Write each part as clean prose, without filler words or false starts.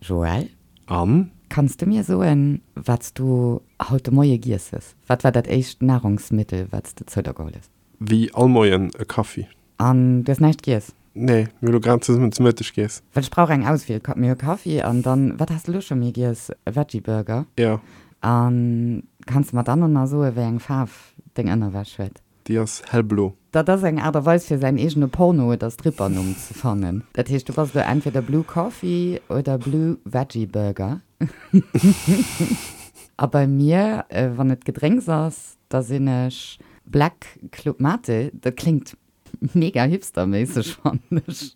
Joël? An? Kanns du mir soen, wat s du haut de Moie giess hues? Wat war dat éischt Nahrungsmittel, wat s de zou der geholl hues? Wéi all Moien e Kaffi. An du hues näischt giess? Nee, mir hu lo grad zesummen zu Mëtteg giess. Well ech brauch eng Auswiel. Mir hu Kaffi an dann, wat has de lo scho méi giess? E Veggie Burger? Jo. A kanns de mer dann och nach soen, wéi eng Faarf deng Ënnerwäsch huet? Déi ass hellblo. Dat ass eng Aart a Weis fir säin eegene Porno oder Strippernumm ze fannen. Dat heescht, du bass elo entweder Blue Coffee oder Blue Veggie Burger. A bei mir, wann et Gedrénks ass, da sinn ech Black Club Mate, dat kléngt mega hipsterméisseg, fannen ech,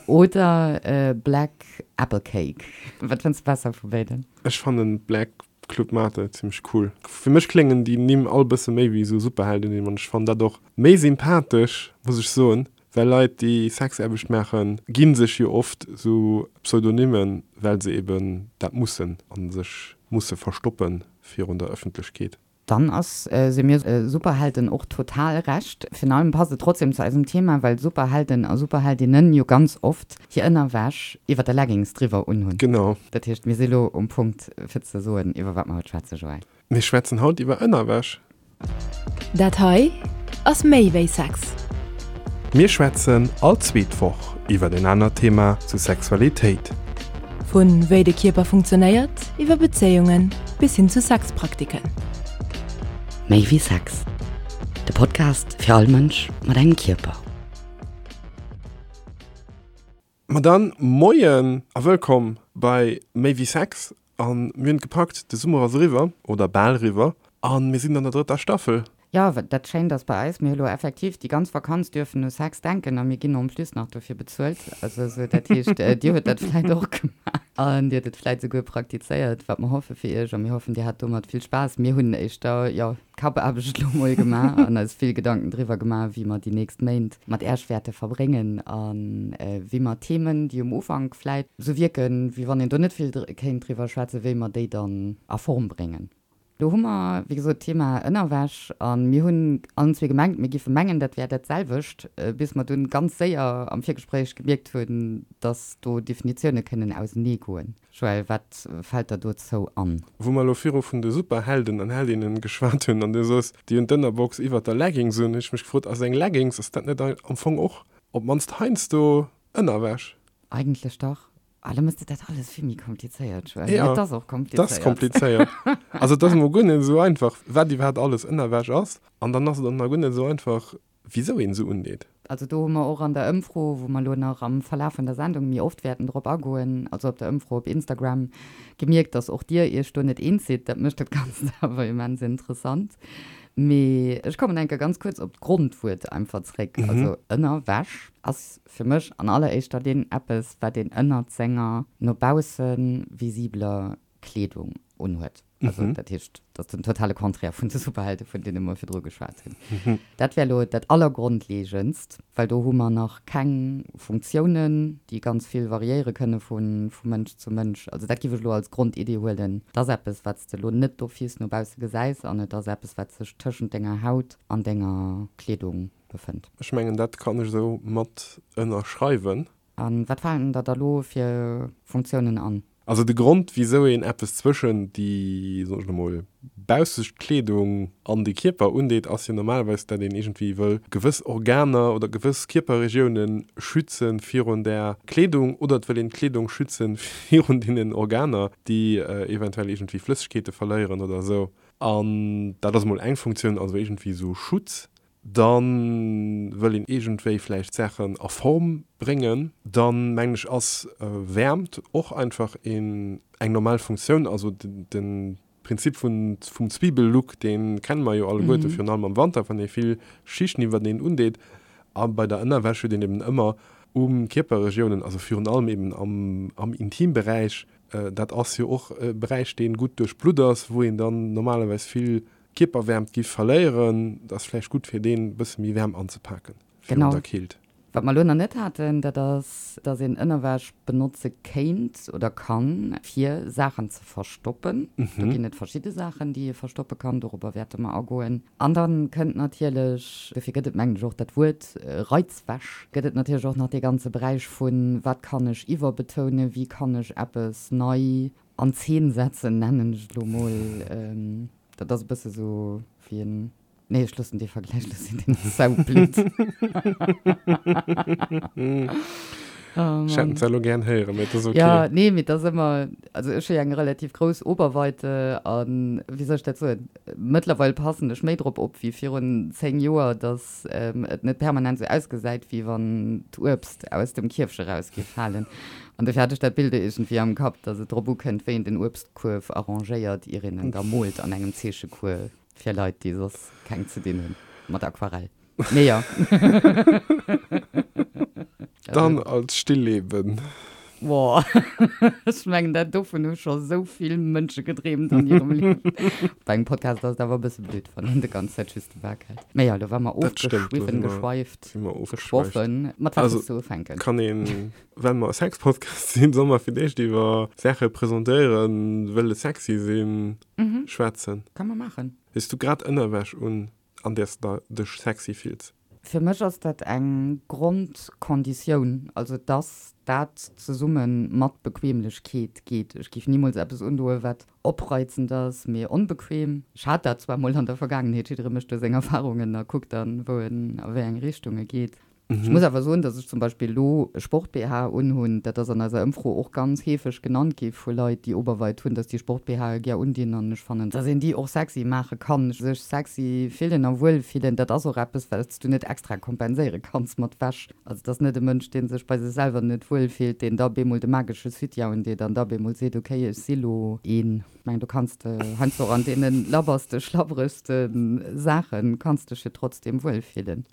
oder Black Apple Cake. Wat fënns de besser vu béiden? Ech fannen Black Club Mate zimmlech cool. Fir mech kléngen déi Nimm all bësse méi wéi esou Superheldennimm an ech fannen dat och méi sympathesch, muss ech soen, well Leit déi Sexaarbecht maachen, gi sech jo oft esou Pseudonymen, well se eben dat mussen a sech musse verstoppe virun der Ëffentlechkeet. Dann ass se mir Superhelden och total recht. Virun allem passt et trotzdem zu eisem Thema, well Superhelden a Superheldinnen jo ganz oft hir Ënnerwäsch iwwer der Leggings driwwer unhunn. Genau. Dat heescht, mir si lo um Punkt fir ze soen, iwwer wat mer haut schwätzen, Joël. Mir schwätzen haut iwwer Ënnerwäsch. Dat hei ass méi wéi Sex. Mir schwätzen all zweet Woch iwwer en anert Thema zu Sexualitéit. Vu wéi de Kierper funktionéiert, iwwer Bezéiungen bis hin zu Sexpraktiken. Méi wéi Sex, de Podcast fir all Mënsch mat engem Kierper. Ma dann Moien a wëllkomm bei Méi wéi Sex. A mir hunn et gepackt, de Summer ass eriwwer, oder bal eriwwer, a mir sinn an der drëtter Staffel. Jo, dat Schéint ass bei eis, mir hu lo effektiv déi ganz Vakanz dürfen u Sex denken a mir ginn en plus nach dofir bezuelt. Also esou, dat heescht, Dir hutt dat vläit och gemaach an Dir hutt et vläit esouguer praktizéiert, wat mer hoffe fir Iech a mir hoffen, Dir hat domat vill Spaass. Mir hunn éischter, jo, Kappaarbecht elo mol gemaach an eis vill Gedanken driwwer gemaach, wéi mer déi nächst Méint mat Äerch wäerte verbréngen a wéi mer Themen, déi um Ufank vläit sou wierken, wéi wann een do net vill kéint driwwer schwätzen, wéi mer déi dann a Form bréngen. Do hu mer, wéi gesot, d'Thema Ënnerwäsch a mir hunn allen zwee gemengt, mir géife mengen, dat wär dat selwecht, bis mer dunn ganz séier am Virgespréich gemierkt hunn, dass do Definitioune kënnen auseneegoen. Joël, wat fält der dozou an? Wou mer elo viru vun de Superhelden an Heldinnen geschwat hunn an du soos, déi hunn d'Ënnerbox iwwert der Leggings un, hunn ech mech gefrot, ass eng Leggings, ass dat net am Fong och op d'mannst heiansdo Ënnerwäsch? Eigentlech dach. Ah, lo mëss de dat alles vill méi komplizéiert, Joël. Jo, Et ass och et ass komplizéiert. Also et ass emol guer net esou einfach, wat iwwerhaapt alles Ënnerwäsch ass. An dann ass et och nach guer net esou einfach, Wisou een se undeet? Also do hu mer och an der Ëmfro, wou mer elo nach am Verlaf vun der Sendung méi oft wäerten drop agoen, also op der Ëmfro op Instagram, gemierkt, dass och Dir Iech do net eens sidd. Dat mécht dat Ganzt awer immens interessant. Mee ech kommen eng Kéier ganz kuerz op d'Grondwuert einfach zréck. Also Ënnerwäsch ass fir mech an alleréischter Linn eppes, wat een ënnert senger no bausse visibeler Kleedung unhuet. Also dat heescht, dat ass den totale Contraire vun de Superhelde, vun deene mer virdru geschwat hunn. Dat wär elo dat Allergrondleegendst, well do hu mer nach keng Funktiounen, déi ganz vill variéiere kënne vu Mënsch zu Mënsch. Also dat géif ech elo als Grondidee huelen. Et ass eppes, wat s de elo net d'office no bausse gesäis an et ass eppes, wat sech tëschent denger Haut an denger Kleedung befënnt. Ech mengen, dat kann ech esou mat ënnerschreiwen. A wat falen der da lo fir Funktiounen an? Also de Grond wisou een eppes zwëschen déi, soen ech elo mol, baussescht Kleedung an de Kierper undeet, ass jo normalerweis dat een iergendwéi wëll gewëss Organer oder gewëss Kierperregioune schütze virun där Kleedung oder et wëll een d'Kleedung schütze virun deenen Organer, déi eventuell iergendwéi Flëssegkeete verléieren oder esou. An dat ass emol eng Funktioun, also iergendwéi esou Schutz. Dann wëll een iergendwéi vläicht Saachen a Form bréngen. Dann mengen ech ass Wäermt och einfach een eng normal Funktioun. Also de Prinzip vun vum Zwiebellook dee kenne mer jo alleguerte, virun allem am Wanter wann ee vill Schichten iwwerteneen undeet. A bei der Ënnerwäsch huet een eben ëmmer u Kierperregiounen, also virun allem eben am am Intimberäich, dat ass jo och e Beräich dee gutt duerchblutt ass, wou een dann normalerweis vill Kierperwäermt giff verléieren, et ass vläicht gutt fir deen bësse méi waarm anzepaken virun Genau. der Keelt. Wat mer elo nach net haten, dat ass, dass een Ënnerwäsch benotze kéint oder kann, fir Saachen ze verstoppen. Do ginn et verschidde Saachen, déi ee verstoppe kann. Dorobber wäerte mer agoen. An da kënnt natierlech, dofir gëtt et mengen ech och dat Wuert Reizwäsch, gëtt et natierlech och nach dee ganze Beräich vun, wat kann ech iwwerbetounen, wéi kann ech eppes nei an Zeen setzen, nennen ech et elo mol. Dat ass e bësse sou wéi en Nee, ech loossen dee Vergläich lo sinn, deen ass saublöd. Oh Ech hätt en zwar elo gären héieren, mee et ass ok. Ja, nee, mee et ass ëmmer, also ech hu jo eng relativ grouss Oberweite an, wéi soll ech dat soen, mëttlerweil passen ech méi drop op wéi virun 10 Joer, dass et net permanent esou ausgesäit, wéi wann d'Uebst aus dem Kierfche raus géif falen. An dofir hat ech dat Bild iergendwéi am Kapp, dass et drop ukënnt, wéi een den Uebstkuerf arrangéiert, ier een en da moolt an engem Zeechecours. Fir Leit, déi soss keng ze dinn hunn mat Aquarell. Mee jo. Dann als Stillleben. Boah, ech mengen dat dovun hu scho sou vill Mënsche gedreemt an hirem Liewen. Bei engem Podcast ass et awer e bësse blöd, wann een de ganz Zäit just de Bak hält. Mee jo, lo war mer Dat stemmt, do si ofgeschwiffen, mer, geschweift, si mer ofgeschweift. geschwoffen. Mat wat Also, wëlls du ufänken? kann een, well mer e Sexpodcast sinn, solle mer fir d'éischt iwwer Saache presentéieren, wëlle sexy sinn? schwätzen. Kann mer maachen. Hues du grad Ënnerwäsch un, an där s de dech sexy fills? Fir mech ass dat eng Grondkonditioun, also dass dat zesumme mat Bequemlechkeet geet. Ech géif nimools eppes undoen, wat opreizend ass, mee onbequem. Ech hat dat zwar mol an der Vergaangenheet, jidderee mécht do seng Erfarungen a kuckt dann, wou en a wéi eng Richtung e geet. Ech muss awer soen, dass ech zum Beispill elo e Sport-BH unhunn. Dat ass an eiser Ëmfro och ganz heefeg genannt gi vu Leit, déi Oberweit hunn, dass déi Sport-BHe gär undinn. An ech fannen, dass een déi och sexy maache kann. Sech sexy fillen a wuel fillen, dat ass och eppes, wat s du net extra kompenséiere kanns mat Wäsch. Also et ass net e Mënsch, dee sech bei sech selwer net wuel fillt, deen da bemol de magesche Soutien undeet an da bemol seet, okay, ech si lo een. Ech mengen, do kanns de heiansdo och an deene labberste, schlabberegste Saache kanns dech jo trotzdem wuel fillen.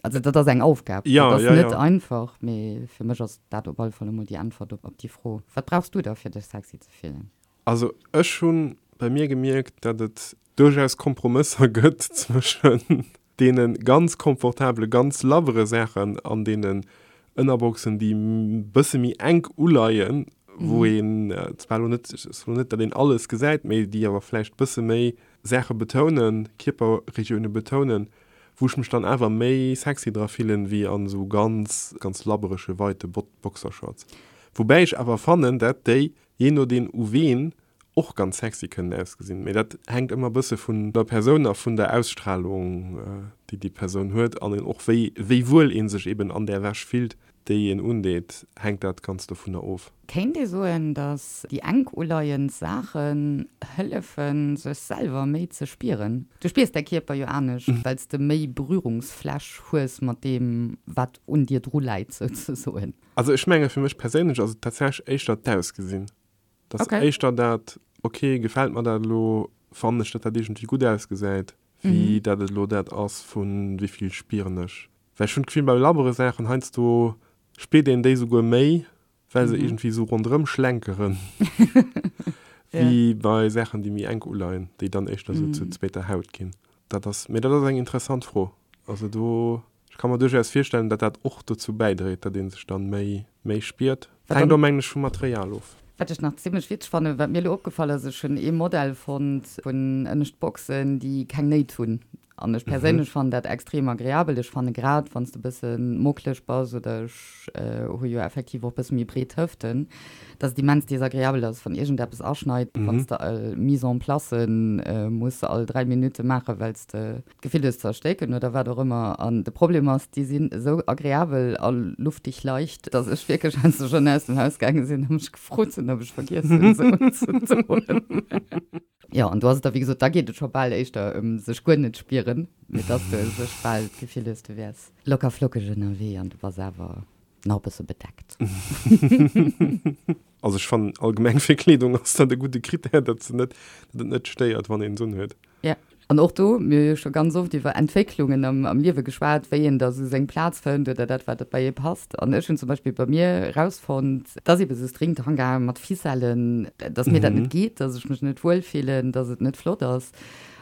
Also dat ass eng Aufgab, Ja, dat ass ja, net ja. einfach, mee fir mech ass dat op alle Fall emol déi Äntwert op déi Fro. Wat brauchs du da fir dech sexy ze fillen? Also ech hu bei mir gemierkt, datt et duerchaus Kompromësser gëtt zwëschen deene ganz komfortabele, ganz labbere Saachen an deenen Ënnerboxen, déi bësse méi enk uleien, wou een zwar elo net, ech soen net, datt een alles gesäit, mee déi awer vläicht bësse méi Saache betounen, Kierperregioune betounen, wou ech mech dann awer méi sexy dra fillen wéi an esou ganz ganz labberege weite Boxershorts. Woubäi ech awer fannen dat déi, jee nodeen u ween, och ganz sexy kënnen ausgesinn. Mee dat hänkt ëmmer bësse vun der Persoun a vun der Ausstrahlung déi déi Persoun huet an och wéi wéi wuel een sech eben an där Wäsch fillt déi een undeet, hänkt dat ganz dovunner of. Kéint ee soen, datt déi enk uleiend Saachen hëllefen, sech selwer méi ze spieren? Du spiers däi Kierper jo anescht, well s de méi Berührungsfläch hues mat deem, wat un dir dru läit, souzesoen. Also ech menge fir mech perséinlech ass et tatsächlech éischter d'Ausgesinn. Et ass éischter dat, ok, gefält mer dat elo, fannen ech, datt dat iergendwéi gutt ausgesäit, wéi datt et elo dat ass vu wéi vill spieren ech. Well ech hunn d'Gefill bei labbere Saachen heiansdo spiert een déi souguer méi, well se iergendwéi esou ronderëm schlenkeren, wéi bei Saachen déi méi enk uleien, déi dann éischter esou zur zweeter Haut ginn. Dat ass, mee dat ass eng interessant Fro. Also do, ech ka mer duerchaus virstellen, datt dat och dozou bäidréit, datt ee sech dann méi, méi spiert. Hänkt och mengen ech vum Material of. Wat ech nach zimlech witzeg fannen, wat mir elo opgefall ass, ech hunn ee Modell fonnt vun ënnescht Boxen, déi keng Néit hunn. An ech perséinlech fannen dat extrem agreabel. Ech fanne grad wann s de bësse mockleg bass, oder ech hu jo effektiv och bësse méi breet Hëften, dass et immens desagreabel ass, wann iergendeppes aschneit, wann s de all Mise en placen muss all 3 Minutte maachen, well s de d'Gefill hues ze erstécken oder wat och ëmmer. An de Problem ass, déi sinn esou agreabel a luftig leicht, dass ech wierklech heiansdo schonn aus dem Haus gaange sinn a mech gefrot hunn, ob ech vergiess hunn, se unzedoen. Jo, an do ass et da, wéi gesot, da geet et scho bal éischter ëm sech guer net spieren, mee dass du u sech bal d'Gefill hues, du wäers locker flockeg ënnerwee an du bass awer nach e bësse bedeckt. Also ech fannen allgemeng fir Kleedung ass dat e gudde Critère, datt se net, datt et net stéiert wann een se unhuet. Ja, an och do, mir hu jo scho ganz oft iwwer Entwécklungen am, am Liewe geschwat, wéi een da sou seng Plaz fënnt oder dat wat bei ee passt. An ech hunn zum Beispill bei mir erausfonnt, dass ebe sou Stringtanga mat Ficellen, dass mir dat net geet, dass ech mech net wuel fillen, dass et net flott ass.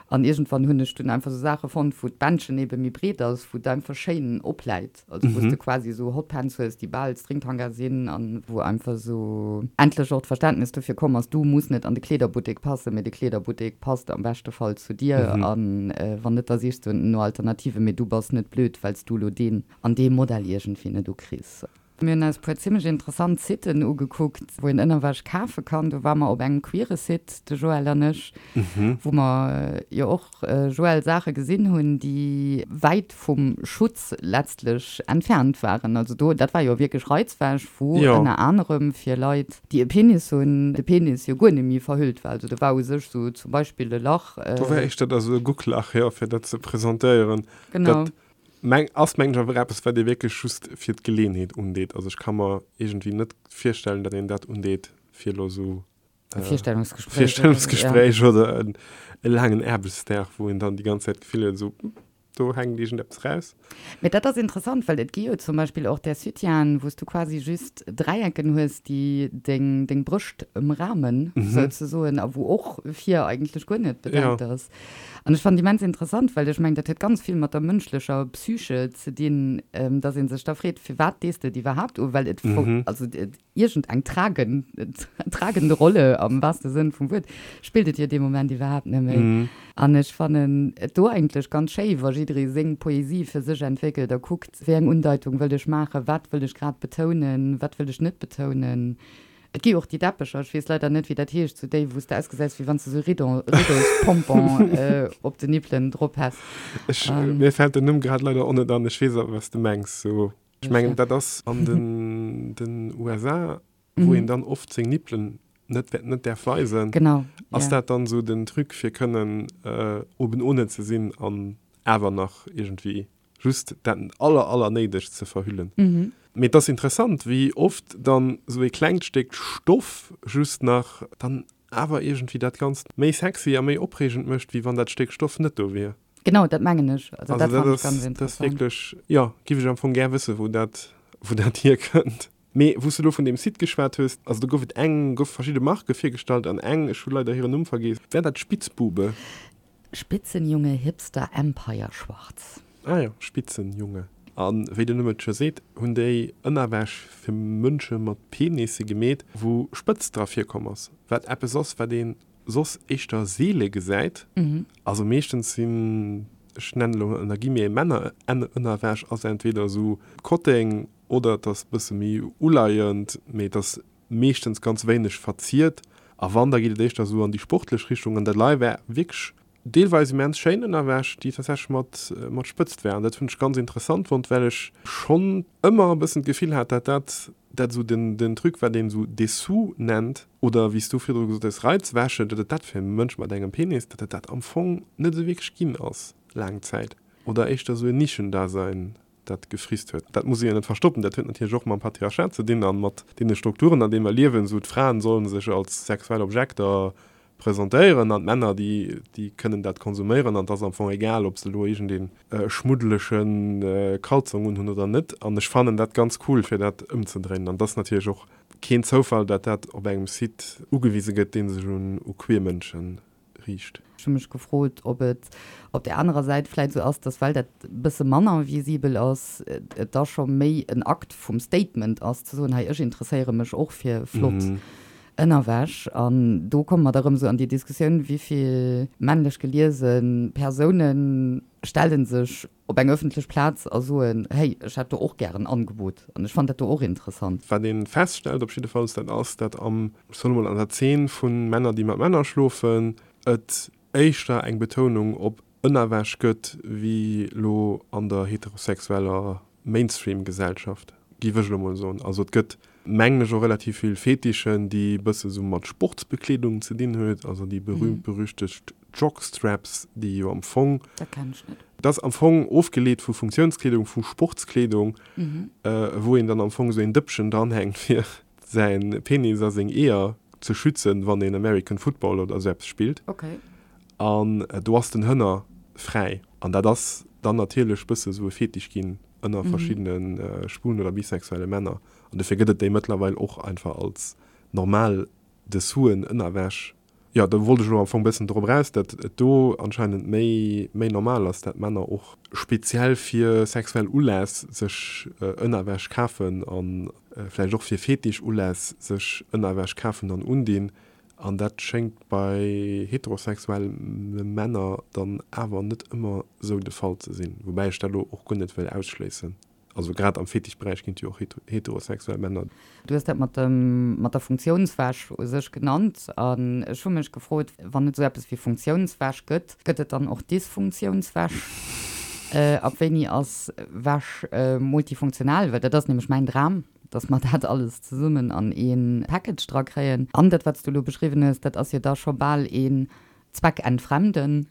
An iergendwann hunn ech dunn einfach esou Saache fonnt, wou d'Bändchen ebe méi breet ass, wou et einfach schéin opläit. Also wou s de quasi esou Hotpants hues, déi bal Stringtanga sinn an wou einfach esou endlech och d'Verständnis dofir komm ass, du muss net an de Kleederbuttek passen, mee de Kleederbuttek passt am beschte Fall zu dir. An wann net, da sichs du no Alternativen, mee du bass net blöd, well s du elo deen an dee Modell iergendwéi net ukriss. Mir hunn eis puer zimmlech interessant Siten ugekuckt, wou een Ënnerwäsch kafe kann. Do ware mer op engem queere Site, de Joël an ech, wou mer jo och, Joël, Saache gesinn hunn, déi wäit vum Schutz letztlech entfernt waren. Also do, dat war jo wierklech Reizwäsch, wou ënner anerem fir Leit, déi e Penis hunn, de Penis jo guer net méi verhüllt war. Also do war u sech sou zum Beispill e Lach. Do war éischter da sou e Gucklach, jo, fir dat ze presentéieren. Genau. Dat Meng, ass mengen ech awer eppes wat ee wierklech just fir d'Geleeënheet undeet. Also ech ka mer iergendwéi net virstellen, datt een dat undeet fir elo esou E Virstellungsgespréich oder, ja. Virstellungsgespréich oder en e laangen Aarbechtsdag, wou een dann déi ganz Zäit d'Gefill huet, esou, do hänkt iergendeppes raus. Mee dat ass interessant, well et gi jo zum Beispill och där Soutienen, wou s du quasi just Dräiecken hues, déi deng, deng Brëscht ëmramen, souzesoen, a wou och vir eigentlech guer net bedeckt ass. An ech fannen immens interessant, well ech mengen, dat huet ganz vill mat der mënschlecher Psyche ze dinn, dass ee sech da freet, firwat dees de et iwwerhaapt u, well et also iergend eng tragen, tragende Rolle am wahrste Sënn vum Wuert spillt et jo dee Moment iwwerhaapt net méi. An ech fannen et do eigentlech ganz schéi, wa jidderee seng Poesie fir sech entwéckelt a kuckt, wéi eng Undeitung wëll ech maachen, wat wëll ech grad betounen, wat wëll ech net betounen. Et gi och déi Deppecher, ech weess leider net wéi dat heescht, sou déi wou s de ausgesäis wéi wann s de sou Ridon, Riddospompon op den Nippelen drop häss. Ech, mir fält den Numm grad leider och net an, ech weess awer wat s de mengs. Sou, ech mengen dat ass an den den USA, wou een dann oft seng Nippelen net net däerf weisen. Genau, Ass dat dann sou den Truc fir kënnen oben ohne ze sinn an awer nach iergendwéi just dat aller aller néidegst ze verhüllen. Mee et ass interessant wéi oft dann esou ee klengt Stéck Stoff just nach dann awer iergendwéi dat Ganzt méi sexy a méi opreegend mécht, wéi wann dat Stéck Stoff net do wier. Genau, dat mengen ech. Also dat fannen ech ganz interessant. Dat ass wierklech, jo, giff ech am Fong gär wëssen, wou dat wou dat hierkënnt. Mee wou s de elo vun deem Site geschwat hues, also do gouf et eng, goufe verschidde Marke virgestallt an eng, ech hu leider hiren Numm vergeess, war dat Spitzbube? Spitzenjunge Hipster Empire Schwarz. Ah jo, Spitzenjunge. A wéi den Numm et scho seet, hunn déi Ënnerwäsch fir Mënsche mat Penisse gemeet, wou Spëtzt dra virkomm ass, wat eppes ass, wat ee soss éischter seele gesäit. Also meeschtens sinn, ech nennen elo ënner Guillemets, Männerënnerwäsch ass entweder esou Kotteng oder et ass e bësse méi uleiend, mee et ass meeschtens ganz wéineg verziert a wann, da geet et éischter esou an déi sportlech Richtung an dat lei war wierklech deelweis immens schéin ënnerwäsch, déi tatsächlech mat mat Spëtzt war an dat hunn ech ganz interessant fonnt, well ech schonn ëmmer e bëssen d'Gefill hat, dat dat dat esou den den Truc war, deen esou Dessous nennt oder wéi s du virdru gesot hues Reizwäsche, datt et dat fir e Mënsch mat engem Penis, datt et dat am Fong net esou wierklech ginn ass laang Zäit oder éischter esou en Nischendasein dat gefrisst huet. Dat muss ee jo net verstoppen, dat huet natierlech och mam Patriarchat ze dinn a mat deene Strukturen, an deene mer liewen, esou d'Fraen solle sech als sexuell Objekter presentéieren an d'Männer, déi, déi kënnen dat konsuméieren an et ass am Fong egal, ob se elo iergendee schmuddelege Kalzong unhunn oder net. An ech fannen dat ganz cool, fir dat ëmzedréinen. An et ass natierlech och keen Zoufall, dat dat op engem Site ugewise gëtt, dee sech un u queer Mënsche riicht. Ech hu mech gefrot, ob et op där anerer Säit vläit esou ass, dass well dat e bësse manner visibel ass, et da scho méi en Akt vum Statement ass, ze soen, hei ech interesséiere mech och fir flott Ënnerwäsch. An do komme mer da rëm esou an déi Diskussioun, wéi vill männlech geliese Persoune stelle sech op eng ëffentlech Plaz a soen, hey, ech hätt do och gär en Angebot an ech fannen dat do och interessant. Wat ee feststellt op jiddefalls, dat ass, dat am, ech soen emol, an der Zeen vu Männer, déi mat Männer schlofen, et éischter eng Betounung op Ënnerwäsch gëtt, wéi elo an der heterosexueller Mainstream-Gesellschaft, géif ech elo mol soen. Also et gëtt, mengen ech, och relativ vill Fetischen, déi e bësse sou mat Sportsbekleedung ze dinn huet, also déi berühmt-berüchtegt Jockstraps, déi jo am Fong. Dat kennen ech net. Dat ass am Fong ofgeleet vu Funktionskleedung, vu Sportskleedung, wou een dann am Fong esou een Dëppchen dranhänkt, fir säi Penis a seng Eeër ze schützen, wann een American Football oder esou eppes spillt. Okay. An do ass den Hënner fräi. An dat ass dann natierlech bësse sou e Fetisch ginn ënner verschiddene schwulen oder bisexuelle Männer. An dofir gëtt et déi mëttlerweil och einfach als normal Dessous-en, Ënnerwäsch. Jo, do wollt ech elo am Fong bëssen drop eraus, datt et do anscheinend méi, méi normal ass, datt Männer och speziell fir sexuell Uläss sech Ënnerwäsch kafen a vläicht och fir Fetisch-Uläss sech Ënnerwäsch kafen an undinn. An dat schéngt bei heterosexuelle Männer dann awer net ëmmer esou de Fall ze sinn, woubäi ech dat elo och guer net wëll ausschléissen. Also grad am Fetischberäich ginn et jo och heterosexuell Männer. Du hues dat mat dem, mat der Funktiounswäsch u sech genannt. An ech hu mech gefrot, wann et esou eppes wéi Funktiounswäsch gëtt, gëtt et dann och Dysfunktiounswäsch? Ab wéini ass Wäsch multifunktional? Well dat ass nämlech mäin Dram, dass mer dat alles zesummen an ee Package dra kréien. An dat, wat s du elo beschriwwen hues, dat ass jo da scho bal een Zweckentfremden.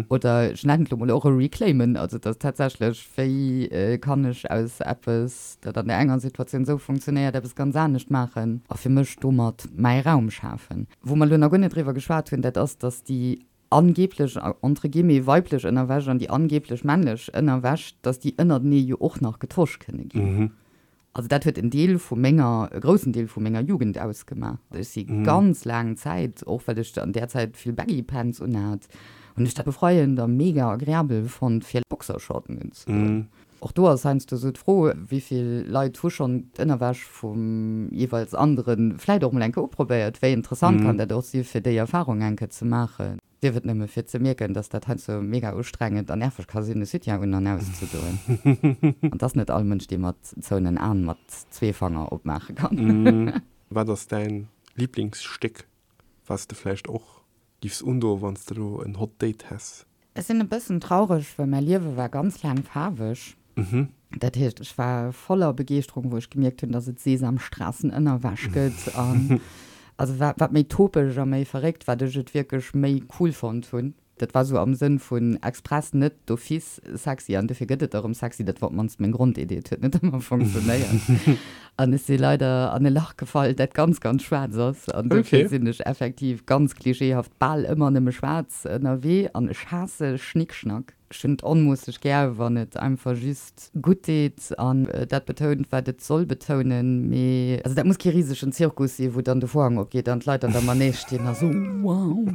Oder ech nennen et elo mol och e Reclaimen, also dass tatsächlech, wéi kann ech aus eppes, dat an där enger Situatioun esou funktionéiert, eppes ganz anescht maachen a fir mech domat mäi Raum schafen. Wou mer elo nach guer net driwwer geschwat hunn, dat ass, dass déi angeblech, entre guillemets, weiblech Ënnerwäsch an déi angeblech männlech Ënnerwäsch, dass déi ënnertenee jo och nach getosch kënne ginn. Also dat huet en Deel vu menger, e groussen Deel vu menger Jugend ausgemaach. Ech si ganz laang Zäit, och well ech an där Zäit vill Baggy Pants unhat, hunn ech dat befreiend a mega agreabel fonnt fir Boxershorten unzedoen. Och do ass heiansdo sou d'Fro, wéi vill Leit hu schonn d'Ënnerwäsch vum jeeweils anderen vläit och mol eng Kéier uprobéiert? Wéi interessant kann dat och si fir déi Erfarung eng Kéier ze maachen? Sief et nëmme fir ze mierken, dass dat heiansdo mega ustrengend an nerveg ka sinn, e Soutien un an auszedoen. An 't ass net all Mënsch, dee mat zouenen Aen mat zwee Fanger opmaache kann. Wat ass däin Liblingsstéck, wat s de vläicht och giffs undoen, wann s de elo en Hot Date häss? Ech sinn e bëssen traureg, well mäi Liewe war ganz laang faarweg. Dat heescht, ech war voller Begeeschterung, wou ech gemierkt hunn, dass et Sesamstraßenënnerwäsch gëtt. An also wat, wat méi topeg a méi verréckt, wat ech et wierklech méi cool fonnt hunn. Dat war sou am Sënn vun express net d'office sexy an dofir gëtt et erëm sexy. Dat war op d'mannst meng Grondidee. Et huet net ëmmer funktionéiert. An ech si leider an e Lach gefall, dat ganz, ganz schwaarz ass. An dofir sinn ech effektiv ganz klischeehaft bal ëmmer nëmme schwaarz ënnerwee. An ech haasse Schnickschnack. Ech hunn et onmoosseg gär, wann et einfach just gutt deet an dat betount, wat et soll betounen. Mee also dat muss kee risegen Zirkus sinn, wou dann de Vorhang opgeet an d'Leit an der Manège stinn a sou wow.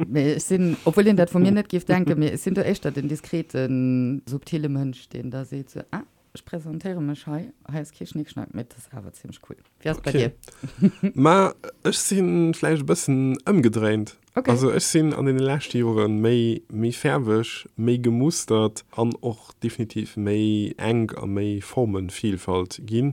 Mee ech sinn, obwuel een dat vu mir net géif denken, mee ech sinn do éischter den diskreten, subtile Mënsch, deen da seet sou, ah, ech presentéiere mech hei, hei ass kee Schnickschnack, mee et ass awer zimmlech cool. Wéi ass et bei dir? Ma ech si vläicht e bëssen ëmgedréint. Okay. Also ech sinn an deene leschte Jore méi, méi fäerweg, méi gemustert an och definitiv méi enk a méi Formenvielfalt ginn.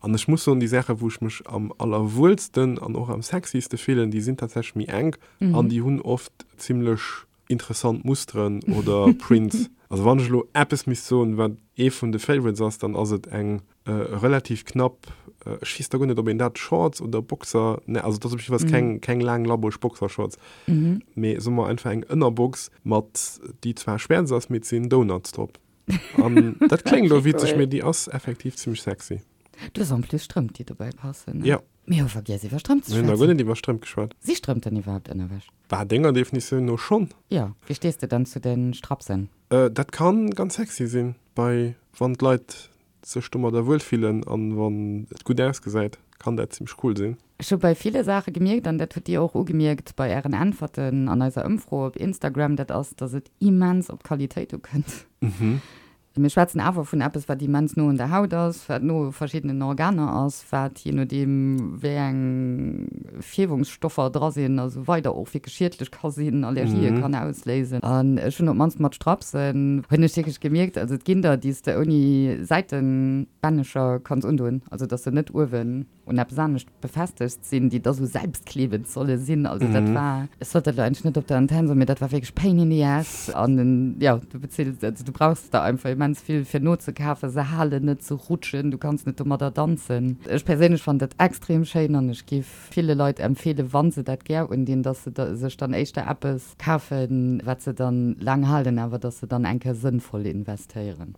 An ech muss soen, déi Saache wou ech mech am allerwuelsten an och am sexyste fillen, déi sinn tatsächlech méi enk an déi hunn oft zimmlech interessant Musteren oder Prints. Also wann ech elo eppes misst soen, wat ee vun de Favorites ass, dann ass et eng relativ knapp, ech weess da guer net, ob een dat Shorts oder Boxer, ne, also et ass op jiddefalls keng, keng laang labbreg Boxershorts, mee soe mer einfach eng Ënnerbox mat, déi zwar schwäerz ass, mee et sinn Donuts drop. An dat kléngt elo witzeg, mee déi ass effektiv zimmlech sexy. Du hues en plus Strëmp, déi dobäi passen, ne? Jo. Mir hu vergiess iwwer Strëmp ze schwätzen. Mir hunn nach guer net iwwer Strëmp geschwat. Si Strëmp dann iwwerhaapt Ënnerwäsch? Bah, denger Definitioun no schonn. Jo. Wéi stees de dann zu de Strapsen? Dat kann ganz sexy sinn, bei wann d'Leit sech domadder wuel fillen an wann et gutt ausgesäit, kann dat zimmlech cool sinn. Ech hu bei ville Saache gemierkt, an dat hutt Dir och ugemierkt bei Ären Äntwerten an eiser Ëmfro op Instagram, dat ass, dass et immens op d'Qualitéit ukënnt. Mir schwätzen awer vun eppes, wat immens no un der Haut ass, wat no u verschiddenen Organer ass, wat, jee nodeem wéi eng Fierwungsstoffer dra sinn a sou weider, och wierklech schiedlech ka sinn, Allergië kann ausléisen. An ech hunn op d'mannst mat Strapsen, hunn ech wierklech gemierkt, also et ginn der, déi s de ouni Säitenbännecher kanns undoen, also dass se net uewen un eppes anescht befestegt sinn, déi da sou selbstklebend solle sinn. Also dat war, ech sollt dat elo eigentlech net op der Antenn soen, mee dat war wierklech pain in the ass. An jo, du bezills, also du brauchs der einfach immens vill fir nozekafen, se halen net, se rutschen, du kanns net domadder danzen. Ech perséinlech fannen dat extrem schéin an ech giff ville Leit empfeelen, wa se dat gär undinn, dass se sech dann éischter eppes kafen, wat se dann laang halen, awer dass se dann eng Kéier sënnvoll investéieren.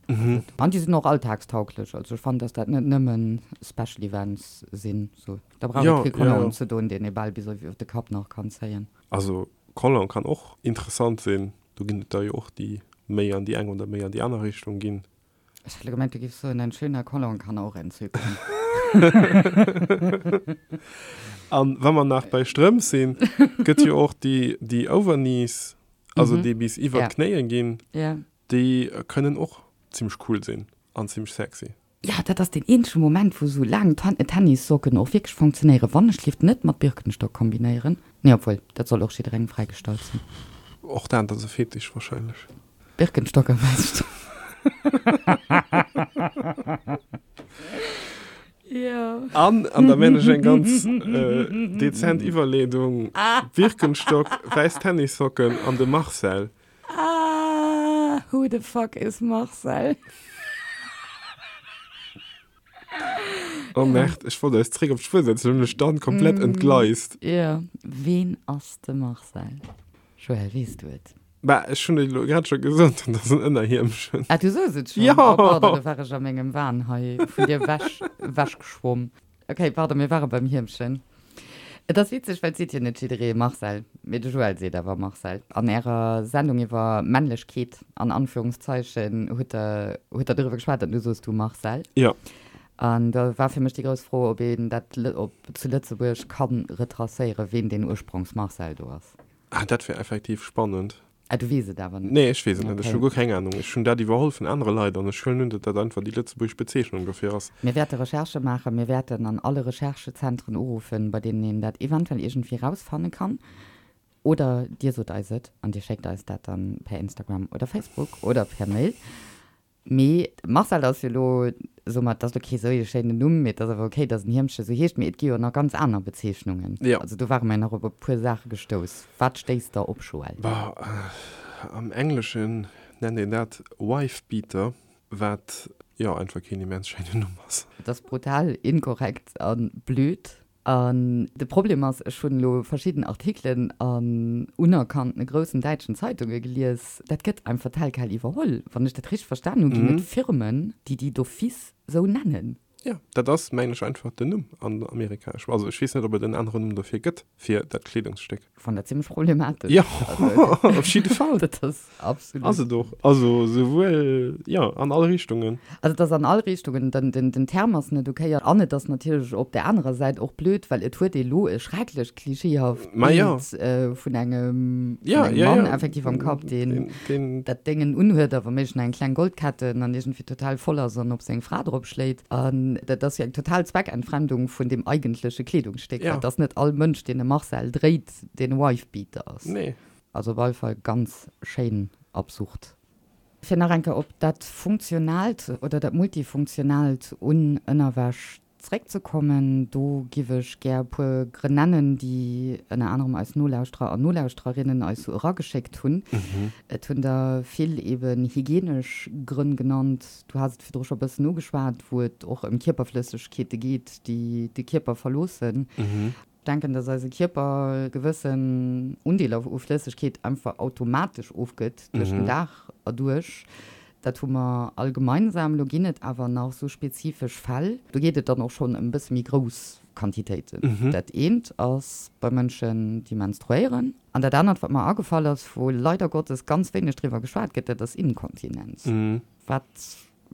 An déi sinn och alltagstauglech. Also ech fannen, dass dat net nëmmen Special Events sinn. So, da brauch et kee Collant ze doen, deen ee bal bis op de Kapp nach kann zéien. Also Collant kann och interessant sinn. Do ginn et der jo och, déi méi an déi eng oder méi an déi aner Richtung ginn. Ech hat elo gemengt, du giffs soen, ein schöner Collant kann auch entzücken. An wa mer nach bei Strëmp sinn, gëtt jo och déi, déi Overknees, also déi bis iwwer d'Knéie ginn, déi kënnen och zimmlech cool sinn an zimmlech sexy. Jo, dat ass deen eenzege Moment, wou sou laang Tennissocken och wierklech funktionéieren, wann ech léift net mat Birkenstock kombinéieren. Nee, obwuel, dat soll och jidderengem fräigestallt sinn. Och dat ass e Fetisch wahrscheinlech. Birkenstock a wäiss Strëmp. Jo. An, an da man ech eng ganz dezent Iwwerleedung, Birkenstock, wäiss Tennissocken an de Marcel. Ah, who the fuck is Marcel? Oh merde, ech wollt eis zréck op d'Spuer setzen, hunn mech dann komplett entgleist. Jo, ween ass de Marcel? Joël, weess du et? Bah, ech hunn et elo grad scho gesot, dat ass en Ënnerhiemchen. Ah, du soos et schonn? Jo! Oh, pardon, do war ech a mengem Wahn hei vun dir wech, wechgeschwomm. Ok, pardon, mir ware beim Hiemchen. Et ass witzeg, well et seet jo net jidderee Marcel, mee de Joël seet awer Marcel. An ärer Sendung iwwer Männlechkeet, an Anführungszeichen, hutt der, hutt der doriwwer geschwat an du soos du Marcel. Jo. An da war fir mech déi grouss Fro, ob een dat op zu Lëtzebuerg ka retracéieren, ween deen Ursprongsmarcel do ass. Ah, dat wär effektiv spannend. Ah, du weess et awer net? Nee, ech weess et net. Ech hu guer keng Anung. Ech hunn dat iwwerholl vun anere Leit an ech huelen un, datt dat einfach déi lëtzebuergesch Bezeechnung dofir ass. Mir wäerte Recherchë maachen. Mir wäerten an alle Recherchezentren uruffen, bei deenen een dat eventuell iergendwéi rausfanne kann. Oder dir sot eis et an dir schéckt eis dat dann per Instagram oder Facebook oder per Mail. Mee Marcel ass jo elo, soe mer, et ass elo kee sou ee schéinen Numm, mee et ass awer ok, datt en Hiemche sou heescht. Mee et gi jo nach ganz aner Bezeechnungen. Jo. Also do ware mer jo nach op e puer Saache gestouss. Wat stéisst der op, Joël? Bah, am Engleschen nennt een dat Wife-Beater, wat, jo, einfach keen immens schéinen Numm ass. Et ass brutal inkorrekt a blöd. An de Problem ass, ech hunn elo verschidden Artikelen an unerkannte groussen däitschen Zeitunge gelies, dat gëtt einfach tel quel iwwerholl. Wann ech dat richteg verstan hunn, ginn et Firmen, déi déi d'office sou nennen. Jo, dat ass, mengen ech, einfach den Numm an Amerika. Ech, also ech weess net, ob et en aneren Numm dofir gëtt, fir dat Kleedungsstéck. Fannen dat zimmlech problematesch. Jo, op jidde Fall. Dat ass absolut. Ass et och. Also souwuel, jo, an all Richtungen. Also et ass an all Richtungen, den, den, den Term ass net okay an et ass natierlech op där anerer Säit och blöd, well et huet ee lo e schrecklech klischeehaft Bild vun engem, vun engem Mann effektiv am Kapp, deen dat Déngen unhuet a wa méiglech nach eng kleng Goldketten an iergendwéi total voll ass an op seng Fra drop schléit. An dat ass jo eng total Zweckentfremdung vun deem eigentleche Kleedungsstéck, well et ass net all Mënsch, deen e Marcel dréit, deen e Wifebeater ass. Nee. Also op alle Fall ganz schéin absurd. Fir nach eng Kéier op dat Funktionaalt oder dat Multifunktionaalt un Ënnerwäsch Zréckzekommen, do giff ech gär e puer Grënn nennen, déi ënner anerem eis Nolauschterer an Nolauschtererinnen eis sou erageschéckt hunn. Et hunn der vill eben hygienesch Grënn genannt, du has et virdru scho e bëssen ugeschwat, wou et och ëm Kierperflëssegkeete geet, déi de Kierper verloossen. Denken, dass eise Kierper gewëssen Undeeler u Flëssegkeet einfach automatesch ofgëtt duerch den Dag erduerch. Dat hu mer all gemeinsam. Lo ginn et awer nach sou spezifesch Fäll, do geet et dann och schonn ëm e bësse méi grouss Quantitéiten. Dat eent ass bei Mënschen, déi menstruéieren. An dat anert, wat mer agefall ass, wou leider Gottes ganz wéineg driwwer geschwat gëtt, dat ass Inkontinenz. Wat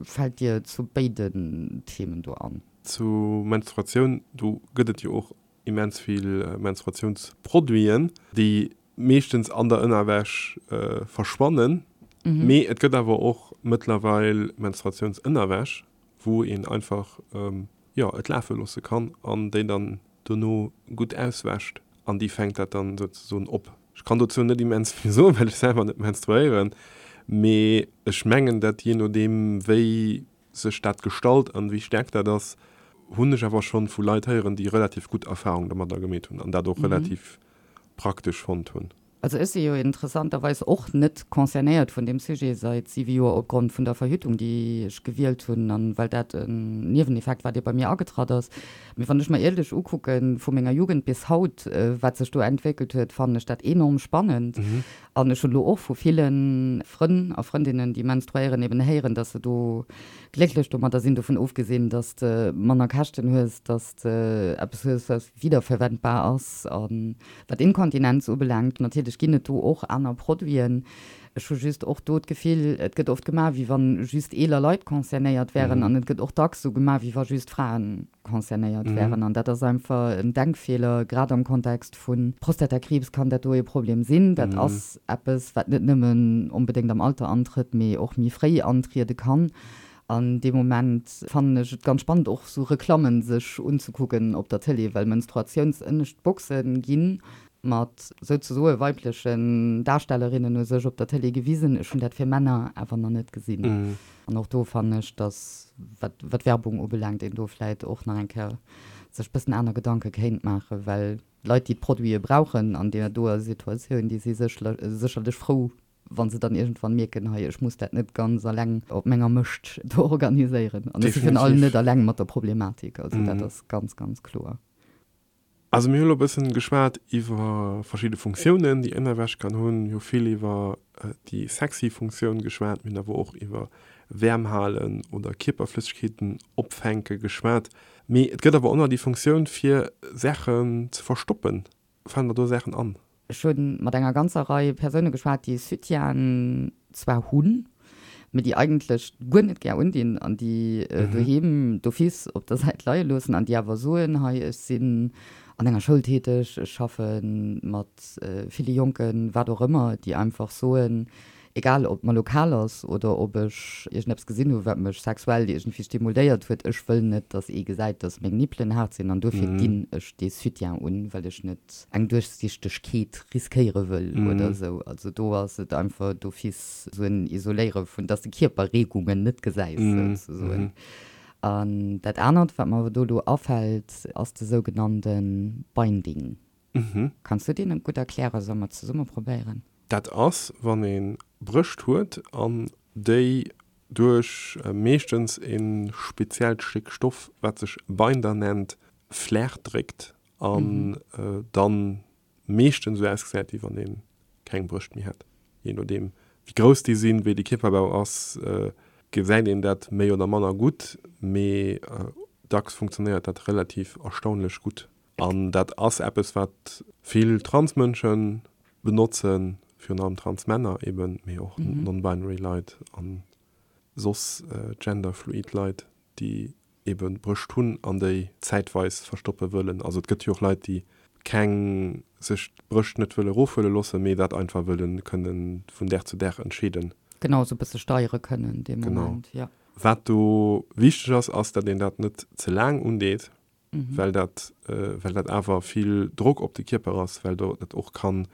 fält dir zu béiden Themen do an? Zu Menstruatioun, do gëtt et jo och immens vill Menstruatiounsproduiten, déi meeschtens an der Ënnerwäsch verschwannen. Mee et gëtt awer och mëttlerweil Menstruatiounsënnerwäsch, wou een einfach, jo, et lafe loosse kann an déi dann dono gutt auswäscht an déi fänkt dat dann souzesoen op. Ech kann dozou net immens vill soen, well ech selwer net menstruéieren, mee ech mengen dat jee nodeem wéi sech dat gestalt an wéi staark dat ass, hunn ech awer schonn vu Leit héieren, déi relativ gutt Erfahrung domadder gemeet hunn an dat och relativ praktesch fonnt hunn. Also ech si jo interessanterweis och net concernéiert vun deem Sujet seit siwe Joer opgrond vun der Verhütung, déi ech gewielt hunn an well dat en Nieweneffekt war, dee bei mir agetratt ass. Mee wann ech mer ierlech ukucken, vu menger Jugend bis haut, wat sech do entwéckelt huet, fannen ech dat enorm spannend. An ech hunn elo och vu ville Frënn a Frëndinnen, déi menstruéieren, eben héieren, dass se do glécklech domadder sinn, dovun ofgesinn, dass de manner Käschten hues, dass de eppes hues, wat wiederverwendbar ass. A wat Inkontinenz ubelaangt, natierlech ginn et do och aner Produiten. Ech hu just och do d'Gefill, et gëtt oft gemaach, wéi wa just eeler Leit concernéiert wären an et gëtt och dacks esou gemaach, wéi wa just Fraen concernéiert wären. An dat ass einfach en Denkfeeler, grad am Kontext vu Prostatakriibs kann dat do ee Problem sinn. Dat ass eppes, wat net nëmmen onbedéngt am Alter antrëtt, mee och méi fréi antriede kann. An dee Moment fannen ech et ganz spannend, och esou Reklammen sech unzekucken op der Tëlee, well Menstruatiounsënnescht Boxe ginn mat souzesoe weiblechen Darstellerinnen u sech op der Tëlee gewisen. Ech hunn dat fir Männer awer nach net gesinn. An och do fannen ech, dass, wat wat Werbung ubelaangt, een do vläit och nach eng Kéier sech bëssen aner Gedanke kéint maachen, well Leit, déi d'Produite brauchen an deer doer Situatioun, déi si sécherlech frou, wa se dann iergendwann mierken, hei, ech muss dat net ganz alleng op menger Mëscht do organiséieren. An ech si virun allem net alleng mat der Problematik. Also dat ass ganz, ganz kloer. Also mir hu lo e bëssen geschwat iwwer verschidde Funktiounen, déi Ënnerwäsch kann hunn. Mir hu vill iwwer déi sexy Funktioun geschwat. Mir hunn awer och iwwer Wäerm halen oder Kierperflëssegkeeten opfänke geschwat. Mee et gëtt awer och nach déi Funktioun fir Saachen ze verstoppen. Falen der do Saachen an? Ech hu mat enger ganzer Rei Persoune geschwat, déi Soutienen zwar hunn, mee déi eigentlech guer net gär undinn an déi doheem d'office op der Säit leie loossen an déi awer soen, hei ech sinn an enger Schoul täteg, ech schaffe mat ville Jonken, wat och ëmmer, déi einfach soen, Egal ob mer lo kal ass oder ob ech iergendeppes gesinn hu wat mech sexuell iergendwéi stimuléiert huet, ech wëll net, dass ee gesäit, dass meng Nippelen haart sinn an dofir ginn ech dee Soutien un, well ech net eng Duerchsichtegkeet riskéiere wëll oder esou. Also do ass et einfach d'office esou en Isoléiere vun, dass de Kierperreegungen net gesäis souzesoen. An dat anert, wat mer do elo afält, ass de sougenannte Binding. Kanns du deen gutt erklären? Solle mer zesumme probéieren? Dat ass, wann ee Brëscht huet an déi duerch meeschtens e speziellt Stéck Stoff, wat sech Binder nennt, flaach dréckt an dann meeschtens esou ausgesäit, wéi wann ee keng Brëscht méi hätt. Jee nodeem wéi grouss déi sinn, wéi de Kierperbau ass, gesäit een dat méi oder manner gutt, mee dacks funktionéiert dat relativ erstaunlech gutt. An dat ass eppes, wat vill Transmënsche benotzen, virun allem Transmänner eben, mee och non-binary Leit a soss genderfluid Leit, déi ebe Brëscht hunn an déi zäitweis verstoppe wëllen. Also et gëtt jo och Leit, déi keng, sech d'Brëscht net wëlle erofhuele loossen, mee dat einfach wëlle kënne vun Dag zu Dag entscheeden. Genau, esou e bësse steiere kënnen dee Moment, jo. Wat do wichteg ass, ass, datt een dat net ze laang undeet, well dat, well dat awer vill Drock op de Kierper ass, well do et och kann,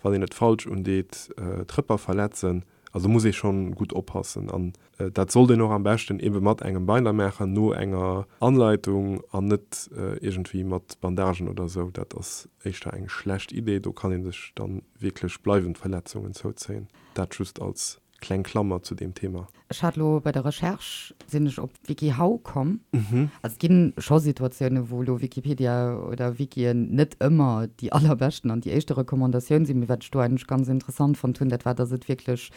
wann een et falsch undeet, d'Rëpper verletzen. Also muss ee schonn gutt oppassen an dat sollt een och am beschten ebe mat engem Binder maachen, no enger Anleitung an net iergendwéi mat Bandagen oder esou. Dat ass éischter eng schlecht Idee, do kann ee sech dann wierklech bleiwend Verletzungen zouzéien. Dat just als kleng Klammer zu deem Thema. Ech hat elo bei der Recherche, sinn ech op WikiHow komm. Also et ginn scho Situatiounen, wou elo Wikipedia oder Wikien net ëmmer déi allerbeschten an déi éischte Recommandatioun sinn. Mee wat ech do eigentlech ganz interessant fonnt hunn, dat war, dass et wierklech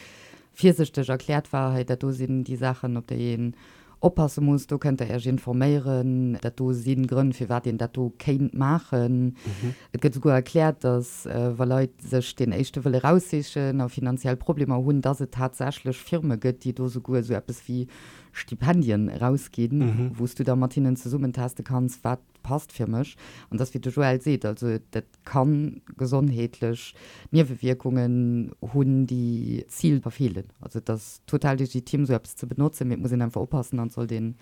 virsichteg erkläert war, hei dat do sinn déi Saachen, op déi een oppasse muss, do kënnt der Iech informéieren, dat do si Grënn, firwat een dat do kéint maachen. Et gëtt esouguer erkläert, datt wa Leit sech deen éischte wëlle raussichen a finanziell Problemer hunn, datt et tatsächlech Firme gëtt, déi do esouguer esou eppes wéi Stipendien erausginn, wou s du da mat hinnen zesummen teste kanns, wat passt fir mech. An dass, wéi de Joël seet, also dat ka gesondheetlech Niewewierkungen hunn, déi d'Zil verfeelen. Also et ass total legitim, esou eppes ze benotzen, mee et muss een einfach oppassen an et sollt een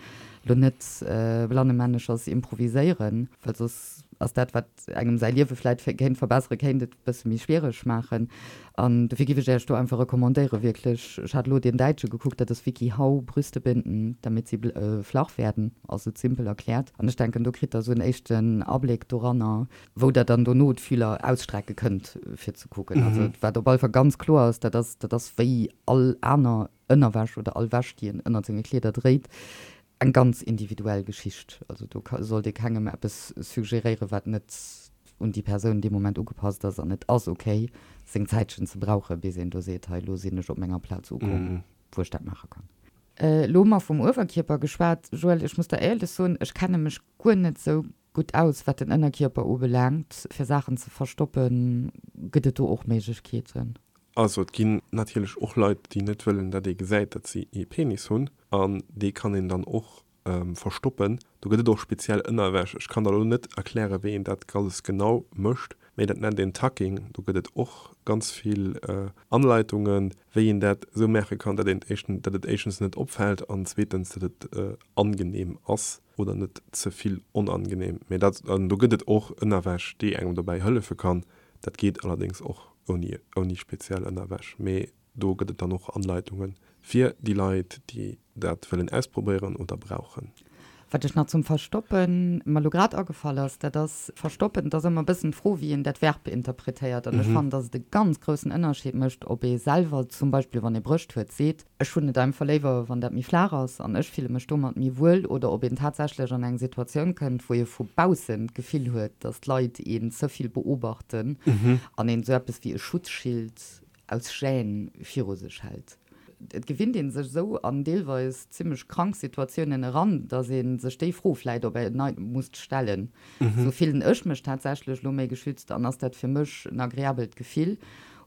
elo net blannemänneschers improviséieren, well soss ass dat, wat engem säi Liewe vläit kéint verbesseren, kéint et e bësse méi schwiereg maachen. An dofir giff ech Iech do einfach recommandéieren, wierklech, ech hat elo deen däitsche gekuckt, dat ass wikiHow, Brüste binden, damit sie flach werden, ass et simpel erkläert. An ech denken, do kritt der esou en éischten Abléck doranner, wou der dann dono d'Fühler ausstrecke kënnt, fir ze kucken. Also wat op alle Fall ganz kloer ass, dat ass, dat ass wéi all aner Ënnerwäsch oder all Wäsch, déi een ënnert senge Kleeder dréit, eng ganz individuell Geschicht. Also do sollt ee kengem eppes suggeréieren, wat net un déi Persoun dee Moment ugepasst ass. An et ass ok, seng Zäitchen ze brauchen, bis een do seet, hei elo sinn ech op menger Plaz ukomm, wou ech dat maache kann. Elo hu mer vum Uewerkierper geschwat. Joël, ech muss der éierlech soen, ech kenne mech guer net sou gutt aus, wat den Ënnerkierper ubelaangt. Fir Saachen ze verstoppen, gëtt et do och Méiglechkeeten? Also et ginn natierlech och Leit, déi net wëllen, datt ee gesäit, datt si ee Penis hunn, an dee kann een dann och verstoppen. Do gëtt et och speziell Ënnerwäsch. Ech kann der elo net erklären, wéi een dat alles genau mécht, mee dat nennt een Tucking. Do gëtt et och ganz vill Anleitungen, wéi een dat esou maache kann, datt een éischten, datt et éischtens net opfält an zweetens, datt et angenehm ass oder net ze vill onangenehm. Mee dat, an do gëtt et och Ënnerwäsch, déi engem dobäi hëllefe kann. Dat geet allerdéngs och ouni, ouni speziell Ënnerwäsch. Mee Do gëtt et dann och Anleitungen fir déi Leit, déi dat wëllen ausprobéieren oder brauchen. Wat ech nach zum Verstoppen mer elo grad agefall ass, dat ass, verstoppen, et ass ëmmer e bëssen d'Fro, wéi een dat Verb interpretéiert. An ech fannen, dass et e ganz groussen Ënnerscheed mécht, ob ee selwer zum Beispill, wann ee Brëscht huet, seet, ech hunn et einfach léiwer, wann dat méi flaach ass an ech fille mech domat méi wuel, oder ob een tatsächlech an eng Situatioun kënnt, wou ee vu baussen d'Gefill huet, dass d'Leit een ze vill beobachten an een esou eppes wéi e Schutzschild aus Gêne viru sech hält. Et gewinnt ee sech esou an deelweis zimmlech krank Situatiounen eran, datt ee sech déi Fro vläit op en Neits musst stellen, Sou fillen ech mech tatsächlech elo méi geschützt an ass dat fir mech en agreabelt Gefill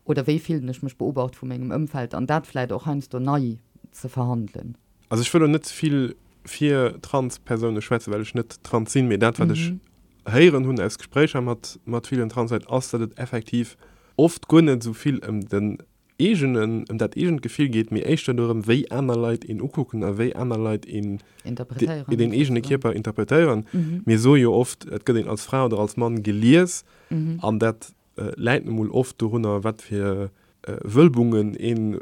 oder wéi fillen ech mech beobacht vu mengem Ëmfeld? An dat vläit och heiansdo nei ze verhandelen. Also ech wëll elo net ze vill fir trans Persoune schwätzen, well ech net trans sinn, mee dat wat ech héieren hunn aus Gespréicher mat mat villen Transleit ass, datt et effektiv oft guer net esou vill ëm den eegenen, ëm dat eegent Gefill geet, mee éischter dorëm, wéi aner Leit een ukucken a wéi aner Leit een Interpretéieren, den eegene Kierper interpretéieren. Mir soe jo oft, et gëtt een als Fra oder als Mann gelies an dat läit nu mol oft dorunner, wat fir Wëlbungen een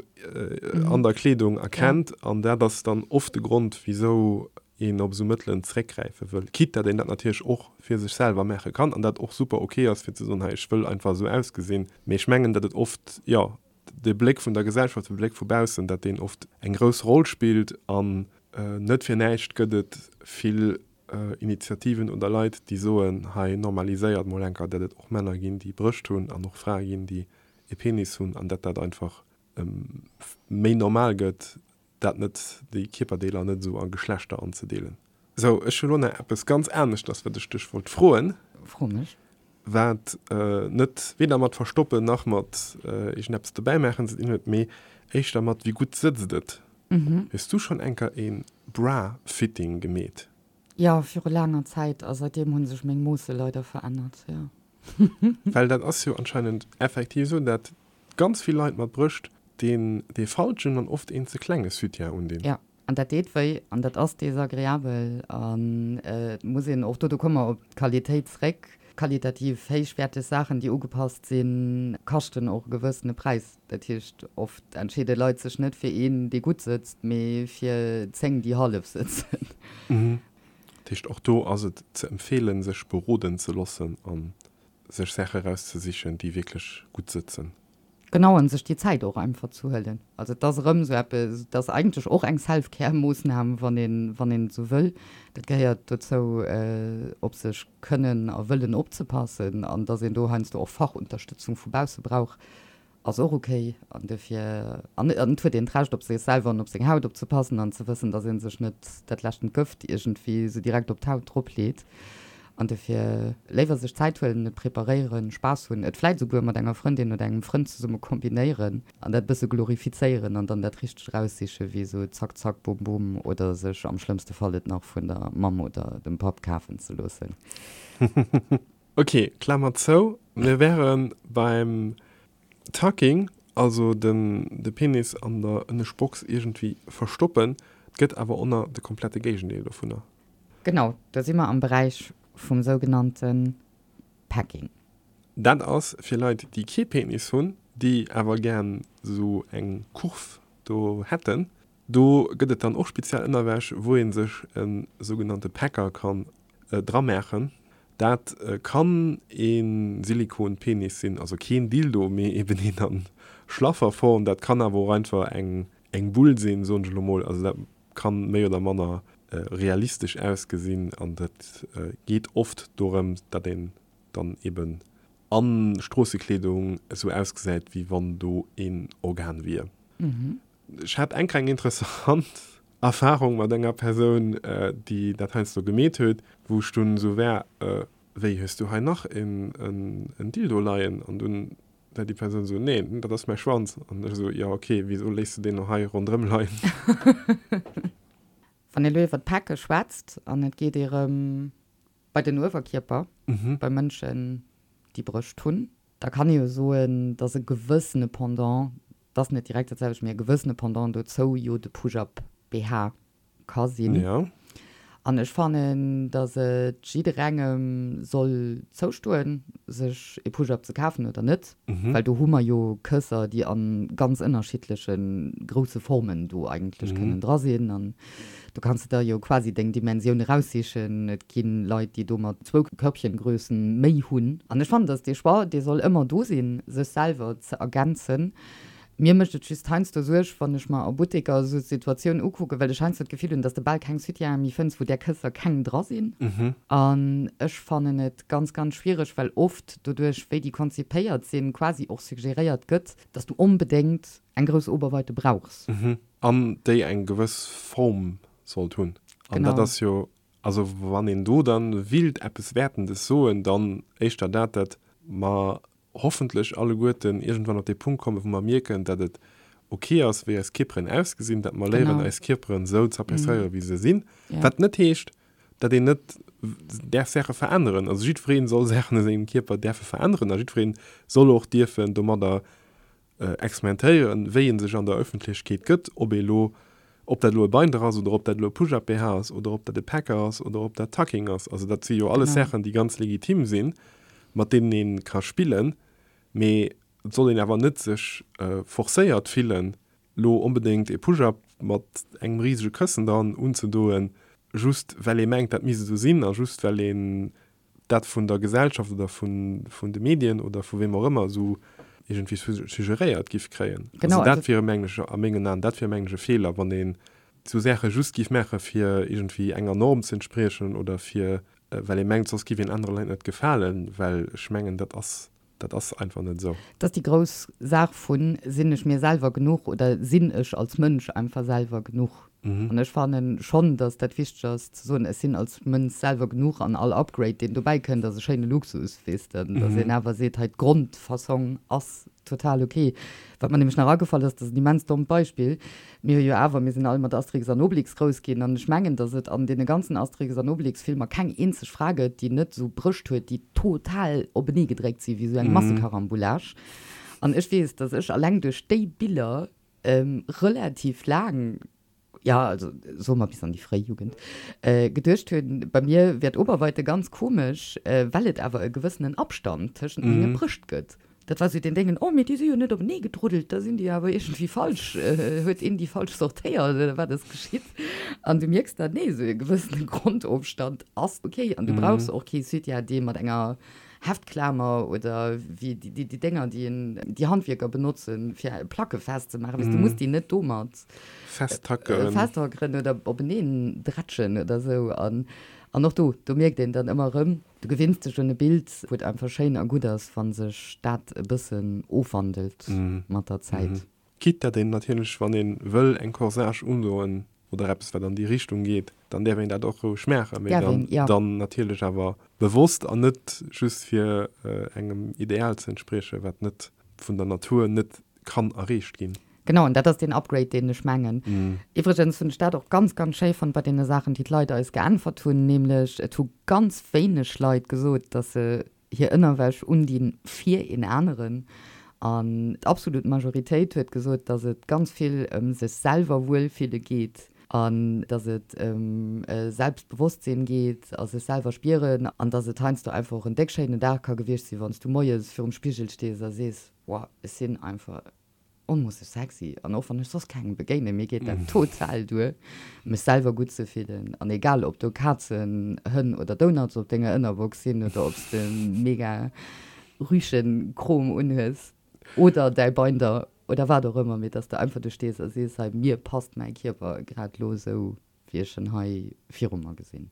an der Kleedung erkennt an dat ass dann oft de Grond, wisou een op esou Mëttelen zeréckgräife wëll, quitte dat een dat natierlech och fir sech selwer maache kann an dat och super ok ass fir ze soen, hei ech wëll einfach esou ausgesinn. Mee ech mengen, datt et oft, jo, de Bléck vun der Gesellschaft, de Bléck vu baussen, datt deen oft eng grouss Roll spillt an net fir näischt gëtt et vill Initiativen oder Leit, déi soen, hei normaliséiert mol enker, datt et och Männer ginn, déi Brëscht hunn an och Frae ginn, déi e Penis hunn an datt dat einfach méi normal gëtt, dat net, déi Kierperdeeler net esou a Geschlechter anzedeelen. Sou, ech hu lo nach eppes ganz aneschters, wat ech dech wollt froen. Fro mech. Wat net weder mat verstoppen nach mat iergendeppes dobäi maachen ze dinn huet, mee éischter mat wéi gutt sëtzt et. Hues du schonn enker ee Bra-Fitting gemeet? Jo, viru laanger Zäit, a seitdeem hu sech meng Moosse leider verännert, jo. Well dat ass jo anscheinend effektiv esou, dat ganz vill Leit mat Brëscht deen dee falschen an oft een ze klenge Soutien undinn. Jo, an dat deet wéi an dat ass desagreabel an et muss een och do, do komme mer op d'Qualitéit zréck, qualitativ héichwäerteg Saachen, déi ugepasst sinn, kaschten och e gewëssene Präis. Dat heescht, oft entscheede Leit sech net fir een, dee gutt sëtzt, mee fir 10, déi hallef sëtzen. Dat heescht, och do ass et ze empfeelen, sech beroden ze loossen a sech Saache erauszesichen, déi wierklech gutt sëtzen. Genau, an sech déi Zäit och einfach ze huelen. Also et ass erëm esou eppes, et ass eigentlech och eng Self-Care-Moossnam, wann een, wann een et esou wëll. Dat gehéiert dozou, op sech kënnen a wëllen opzepassen an dass een do heiansdo och Fachunterstëtzung vu bausse brauch, ass och ok an dofir, an et huet een d'Recht op sech selwer an op seng Haut opzepassen an ze wëssen, dass ee sech net dat leschten Gëft iergendwéi esou direkt op d'Haut drop leet an dofir léiwer sech Zäit huelen, et preparéieren, Spaass hunn, et vläit esouguer mat enger Frëndin oder engem Frënd zesumme kombinéieren an dat e bësse glorifizéieren an dann dat Richtegt eraussiche wéi esou zack zack bum bum oder sech am schlëmmste Fall et nach vun der Mamm oder dem Papp kafen ze loossen. Ok, Klammer zou, mir wäre beim Tucking, also den de Penis an der Ënnescht Box iergendwéi verstoppen. Et gëtt awer och nach de komplette Géigendeel dovunner. Genau, do si mer am Beräich vum sougenannte Packing. Dat ass fir Leit, déi kee Penis hunn, déi awer gären esou eng Kurv do hätten. Do gëtt et dann och speziell Ënnerwäsch, wou ee sech e sougenannte Packer kann dramaachen. Dat kann ee Silikon-Penis sinn, also keen Dildo, mee eben een a schlaffer Form. Dat kann awer och einfach eng Bull sinn, soen ech elo mol. Also dat kann méi oder manner realistesch ausgesinn an dat geet oft dorëm, datt een dann eben a Stroossekleedung esou ausgesäit, wéi wann do een Organ wier. Ech hat eng kleng interessant Erfahrung mat enger Persoun, déi dat heiansdo gemeet huet, wou ech dunn esou war, Wéi, hues du hei nach en Dildo leien? An dunn. War déi Persoun esou, Nee, dat ass mäi Schwanz. An ech esou, Jo, ok, wisou léiss de deen lo hei ronderëm leien? Wann ee lo iwwer d'Päcke schwätzt an et geet ee rëm bei den Uewerkierper, bei Mënschen, déi Brëscht hunn, da kann ee jo soen, dass e gewëssene Pendant, 't ass net direkt dat selwecht, mee e gewëssene Pendant dozou jo de Push-up BH ka sinn. Ja. An ech fannen, dass et jidderengem soll zoustoen, sech ee Push-up ze kafen oder net, well do hu mer jo Kësser, déi a ganz ënnerschiddleche grousse Formen do eigentlech kënnen dra sinn. An do kanns de der jo quasi deng Dimensioun eraussichen. Et gi Leit, déi domat zwou Körbchengrössen méi hunn. An ech fannen, dass dee Choix, dee soll ëmmer do sinn, sech selwer ze ergänzen. Mir mécht et just heiansdo Suerg, wann ech mer a Butteker esou d'Situatioun ukucken, well ech heiansdo d'Gefill hunn, dass de bal keng Soutiene méi fënns, wou där Kësser keng dra sinn. An ech fannen et ganz, ganz schwiereg, well oft doduerch, wéi déi konzipéiert sinn, quasi och suggeréiert gëtt, dass du onbedéngt eng grouss Oberweite brauchs. An déi eng gewëss Form sollt hunn. An dat ass jo, also wann een do dann willt eppes Wäertendes soen, dann éischter dat, dat mer hoffentlech alleguerten iergendwann op dee Punkt kommen, wou mer mierken, datt et ok ass, wéi eis Kierperen ausgesinn, datt mer léieren, eis Kierperen esou z'appréciéieren, wéi se sinn. Wat net heescht, datt een net däerf Saache veränneren. Also jiddweree soll Saachen u sengem Kierper däerfe veränneren a jiddweree soll och dierfen domadder experimentéieren, wéi ee sech an der Ëffentlechkeet gëtt, ob ee lo, ob dat elo e Binder ass oder ob dat elo e Push-up-BH ass oder ob dat e Packer ass oder ob dat Tucking ass. Also dat si jo alles Saachen, déi ganz legitim sinn, mat deenen ee ka spillen, mee et soll een awer net sech forcéiert fillen, lo onbedéngt e Push-up mat engem risege Këssen dran unzedoen, just well ee mengt, dat misst esou sinn a just well een dat vun der Gesellschaft oder vun, vun de Medien oder vu weem och ëmmer esou iergendwéi suggeréiert giff kréien. Genau, also dat wier mengen ech, a mengen Aen, dat wier mengen ech e Feeler, wann een esou Saache just giff maache fir iergendwéi enger Norm ze entspriechen oder fir well ee mengt, soss giff een anere Leit net gefalen, well ech mengen, dat ass Dat ass einfach net esou. Dat ass déi grouss Saach vun, Sinn ech mir selwer genuch oder sinn ech als Mënsch einfach selwer genuch? An ech fannen schonn, datt dat wichteg ass ze soen, ech sinn als Mënsch selwer genuch an all Upgrade, deen dobäi kënnt, ass e schéine Luxus, weess de. Datt een awer seet, hei d'Grondfassong ass total ok. Wat mer nämlech nach agefall ass, dat ass en immens dommt Beispill, Mir hu jo awer, mir sinn all mat Asterix an Obelix grouss ginn an ech mengen, datt et an deene ganzen Asterix an Obelix-Filmer keng eenzeg Fra gëtt, déi net esou Brëscht huet, déi total openee gedréckt sinn, wéi esou eng Massekarambolage. An ech weess, datt ech alleng duerch déi Biller relativ laang, jo, also soe mer bis an déi fréi Jugend, geduecht hunn, bei mir wär d'Oberweite ganz komesch, well et awer e gewëssenen Abstand tëschent menge Brëscht gëtt. Dat war sou deen Déngen, oh mee déi si jo net openee gedruddelt, da sinn déi awer iergendwéi falsch, huet een déi falsch sortéiert oder wat ass geschitt? An du mierks dann, nee, sou e gewëssene Grondofstand ass ok an du brauchs och kee Soutien, dee mat enger Heftklamer oder wéi déi Dénger, déi een, déi Handwierker benotzen, fir Placke festzemaachen, weess, du muss déi net domat Festtackeren. festtackeren oder openeen drätschen oder sou. An och do, do mierkt een dann ëmmer erëm, Du gewinns dech un e Bild, wou et einfach schéin a gutt ass, wa sech dat e bëssen ofwandelt mat der Zäit. Quitte dat een natierlech, wann ee wëll eng Corsage undoen oder eppes wat an déi Richtung geet, dann däerf een dat och roueg maachen, mee dann dann natierlech awer bewosst an net just fir engem Ideal ze entspriechen, wat net vun der Natur net kann erreecht ginn. Genau, an dat ass deen Upgrade, deen ech mengen. Iwwregens hunn ech dat och ganz, ganz schéi fonnt bei deene Saachen, déi d'Leit eis geäntwert hunn, nämlech et hu ganz wéineg Leit gesot, dass se hir Ënnerwäsch undinn fir een aneren. An d'absolut Majoritéit huet gesot, dass et ganz vill ëm sech selwer wuelfille geet an dass et ëm Selbstbewosstsinn geet a sech selwer spieren an dass et heiansdo einfach och en déck schéinen Dag ka gewiescht sinn, wann s du moies virum Spigel stees a sees, Wow, ech sinn einfach onmoosseg sexy an och wann ech soss kengem begéinen, mir geet dat total duer, mech selwer gutt ze fillen an egal ob do Kazen, Hënn oder Donuts op denger Ënnerbox sinn oder ob s de mega Rüschenkrom unhues oder däi Binder oder wat och ëmmer, mee dass de einfach do stees a sees, hei mir passt mäi Kierper grad lo esou wéi ech en hei viru mer gesinn.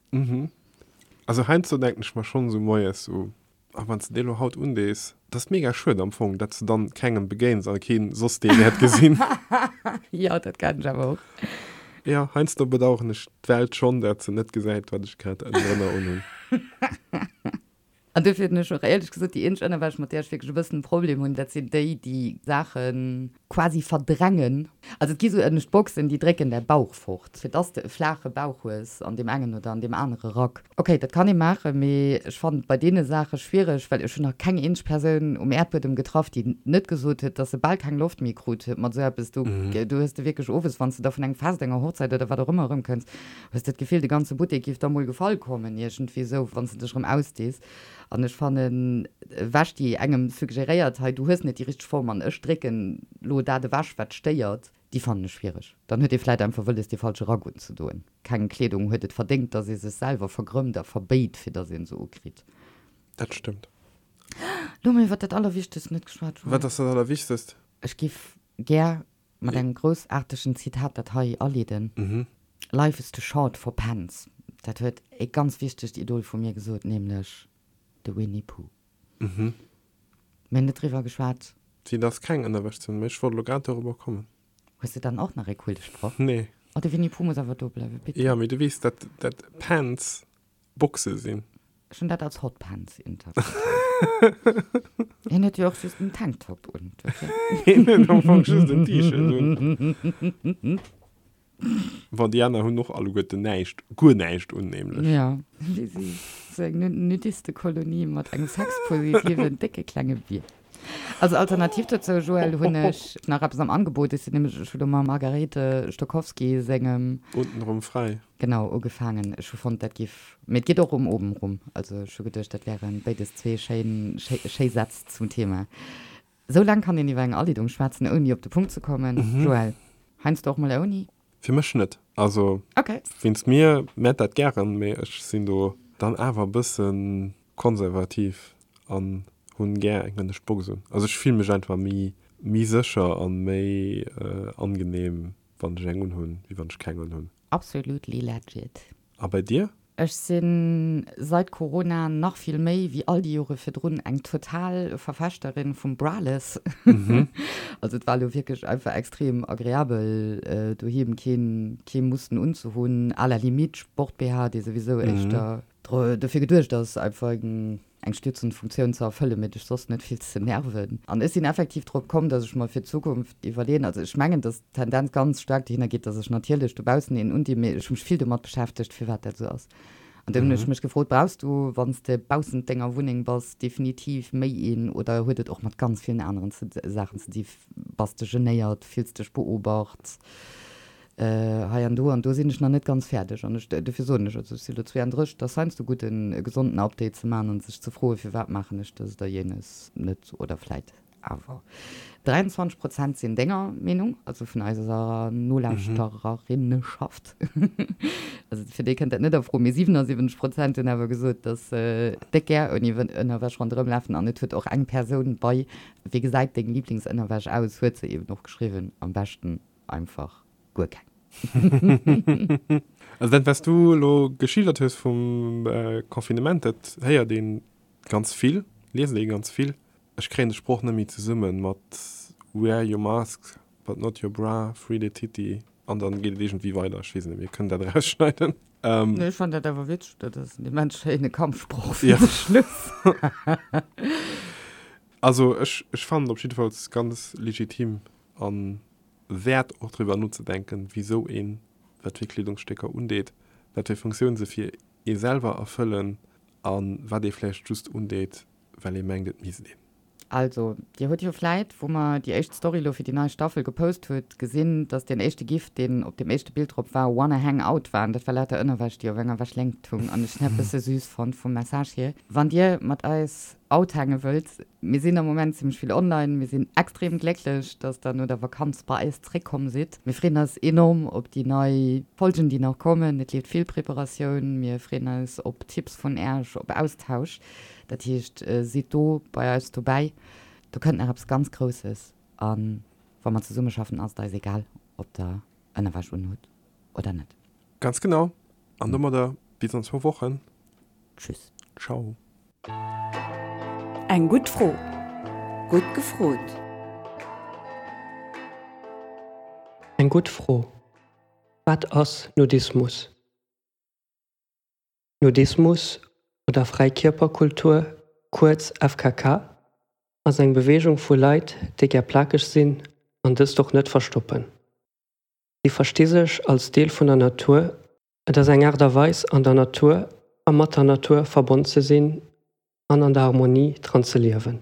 Also heiansdo denken ech mer schonn esou moies esou, A wann s de dee lo haut undees, dat ass mega schued am Fong, dat s de dann kengem begéins a keen soss dee wäert gesinn. Jo, dat kenn ech awer och. Jo, heiansdo bedaueren ech d'Welt schonn, dat se net gesäit, wat ech grad ënnendrënner unhunn. An dofir hunn ech och éierlech gesot, déi eenzeg Ënnerwäsch, mat där ech wierklech e bëssen e Problem hunn, dat sinn déi, déi Saache quasi verdrängen. Also et gi sou ënnescht Boxen, déi drécken däi Bauch fort, fir dass de e flaache Bauch hues an deem engen oder an deem anere Rack. Ok, dat kann ee maachen, mee ech fannen et bei deene Saache schwiereg, well ech hunn nach keng eenzeg Persoun um Äerdbuedem getraff, déi net gesot huet, dass se bal keng Loft méi krut huet mat sou eppes. Do hues de wierklech owes, wann s de da vun engem Fest, enger Hochzäit oder wat och ëmmer erëmkënns, Hues de d'Gefill, de ganze Buttek giff der mol gefall kommen, iergendwéi esou, wann s de dech erëm ausdees? An ech fannen, Wäsch, déi engem suggeréiert, hei, du hues net déi richteg Form an ech drécken lo dat ewech, wat stéiert, déi fannen ech schwiereg. Dann huet ee vläit einfach wëlles, dee falsche Rack unzedoen. Keng Kleedung huet et verdéngt, dass ee sech selwer vergrëmmt a verbéit, fir dass een se ukritt. Dat stëmmt. Lo hu mir iwwer dat Allerwichtegst net geschwat, Joël. Wat ass dat Allerwichtegst? Ech giff gär Mat engem groussaartegen Zitat dat hei aleeden, Life is too short for pants. Dat huet e ganz wichtegt Idol vu mir gesot, nämlech de Winnie Pooh. Mir hunn net driwwer geschwat. Si et ass keng Ënnerwäsch ze hunn, mee ech wollt elo grad dorobber kommen. Hues de dann och nach e coole Sproch? Nee. Oh, de Winnie Pooh muss awer do bleiwen, bitte. Jo, mee du weess, dat dat Pants Boxe sinn. Ech hunn dat als Hotpants interpretéiert. Hien huet jo och just en Tanktop un, dofir. Hien huet am Fong just en T-Shirt un. Bon, déi aner hunn och alleguerten näischt, guer näischt un, nämlech. Jo, wéi si sou eng Nudistekolonie mat engem sexpositiven, décke klenge Bier. Also alternativ dozou, Joël, hunn ech nach eppes am Angebot. Ech sinn nämlech, ech hu lo mam Margarete Stokowski sengem. Untenrum frei. Genau, ugefaangen. Ech hu fonnt, dat giff, mee et geet och ëm obenrum. Also ech hu geduecht, dat wären béides zwee schéin, schéi Sätz zum Thema. Sou laang kann een iwwer eng Aleedung schwätzen, ouni op de Punkt ze kommen, Joël. Heiansdo och mol ouni? Fir mech net. Also Okay. wéinst mir, mät dat gären, mee ech sinn do dann awer e bëssen konservativ an hunn gär eng ënnescht Box un. Also ech fill mech einfach méi méi sécher an méi angenehm wann ech eng unhunn, wéi wann ech keng unhunn. Absolutely legit. A bei dir? Ech sinn seit Corona nach vill méi wéi all déi Jore virdrun eng total Verfechterin vum Braless. Also et war elo wierklech einfach extrem agreabel doheem keen kee mussen unzehunn, à la limite Sport-BH, dee souwisou éischter dofir geduecht ass einfach eng eng stützend Funktioun ze erfëllen, mee dech soss net vill ze nerven. An ech sinn effektiv drop komm, dass ech mer fir d'Zukunft iwwerleeën, also ech mengen, dass d'Tendenz ganz staark dohinner geet, dass ech natierlech dobaussen een undinn, mee ech hu mech vill domat beschäftegt, firwat dat esou ass. An dunn hunn ech mech gefrot, Brauchs du, wann s de baussent denger Wunneng bass, definitiv méi een oder huet et och mat ganz villen aneren Saachen ze di? Bass de genéiert? Fills dech beobacht? Hei an do an do sinn ech nach net ganz fäerdeg an ech, dofir soen ech, also ech si lo 32, et ass heiansdo gutt en e gesonden Update ze maachen an sech ze froen, firwat maachen ech dëst oder jenes net oder vläit awer. 23 Prozent sinn denger Meenung, also vun eiser Nolauschtererinneschaft, also fir déi kënnt dat net a Fro, mee 77 Prozent hunn awer gesot, datt se déck gär ouni Ënnerwäsch ronderëm lafen an et huet och eng Persoun bei Wéi gesäit deng Liblingsënnerwäsch aus huet se eben och geschriwwen, am beschten einfach guer keng. Also dat wat s du elo geschildert hues vum Confinement, dat héiert ee ganz vill, liest ee ganz vill. Ech kréien de Sproch net méi zesumme mat wear your mask but not your bra, free the titty an dann geet et iergendwéi weider. Ech weess net, mir kënnen dat erausschneiden. Nee, ech fannen dat awer witzeg, dat ass en immens schéine Kampfsproch fir de Schluss. Also ech fannen et op jiddefalls ganz legitim an wäert och driwwer nozedenken, wisou een wat fir Kleedungsstécker undeet, wat fir Funktioun se fir ee selwer erfëllen a wat ee vläicht just undeet, well ee mengt et misst een. Also, dir hutt jo vläit, wou mer déi éischt Story lo fir déi nei Staffel gepost hutt, gesinn, dass deen éischte Gif, deen op deem éischte Bild drop war, Wanna hang out war. An dat war lauter Ënnerwäsch, déi op enger Wäschléngt hung. An ech hunn dat bësse süß fonnt vum Message hier. Wann dir mat eis outhänge wëllt, mir sinn am Moment zimmlech vill online, mir sinn extrem glécklech, dass der no der Vakanz bei eis zréckkomm sidd. Mir freeën eis enorm op déi nei Folgen, déi nach kommen. Et leeft vill Preparatioun. Mir freeën eis op Tipps vun Äerch, op Austausch. Dat heescht, sidd do bei eis dobäi. Do kënnt nach eppes ganz Grousses. A wa mer zesummeschaffen, ass et eis egal, ob der Ënnerwäsch unhutt oder net. Ganz genau. An domadder bis an zwou Wochen. Tschüss. Ciao. Eng gutt Fro. Gutt gefrot. Eng gutt Fro, Wat ass Nudismus? Nudismus oder Fräikierperkultur. Kuerz FKK, ass eng Beweegung vu Leit, déi gär plakeg sinn an dëst och net verstoppen. Si versti sech als Deel vun der Natur, et ass eng Aart a Weis an der Natur a mat der Natur verbonn ze sinn an an der Harmonie dran ze liewen.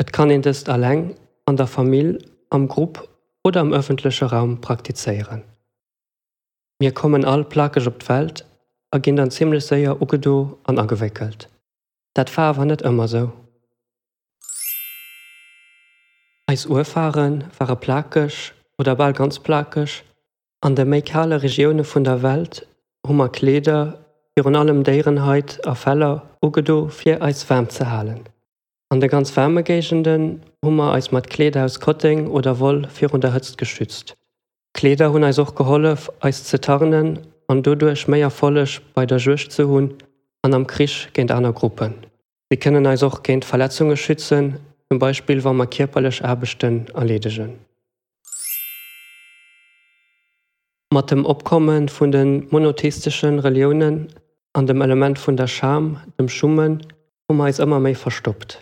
Et kann een dëst alleng, an der Famill, am Grupp oder am ëffentleche Raum praktizéieren. Mir kommen all plakeg op d'Welt a ginn dann zimmlech séier ugedo an agewéckelt. Dat war awer net ëmmer sou. Eis Urfare ware plakeg oder bal ganz plakeg. An de méi kale Regioune vun der Welt hu mer Kleeder, virun allem Déierenhait a Feller, ugedo fir eis waarm ze halen. An de ganz waarme Géigenden hu mer eis mat Kleeder aus Kotteng oder Woll virun der Hëtzt geschützt. Kleeder hunn eis och gehollef, eis ze tarnen an doduerch méi Erfolleg bei der Juegd ze hunn an am Krich géint aner Gruppen. Si kënnen eis och géint Verletzunge schützen, zum Beispill wa mer kierperlech Aarbechten erleedegen. Mat dem Opkomme vun de monotheistesche Reliounen an dem Element vun der Scham, dem Schummen, hu mer eis ëmmer méi verstoppt.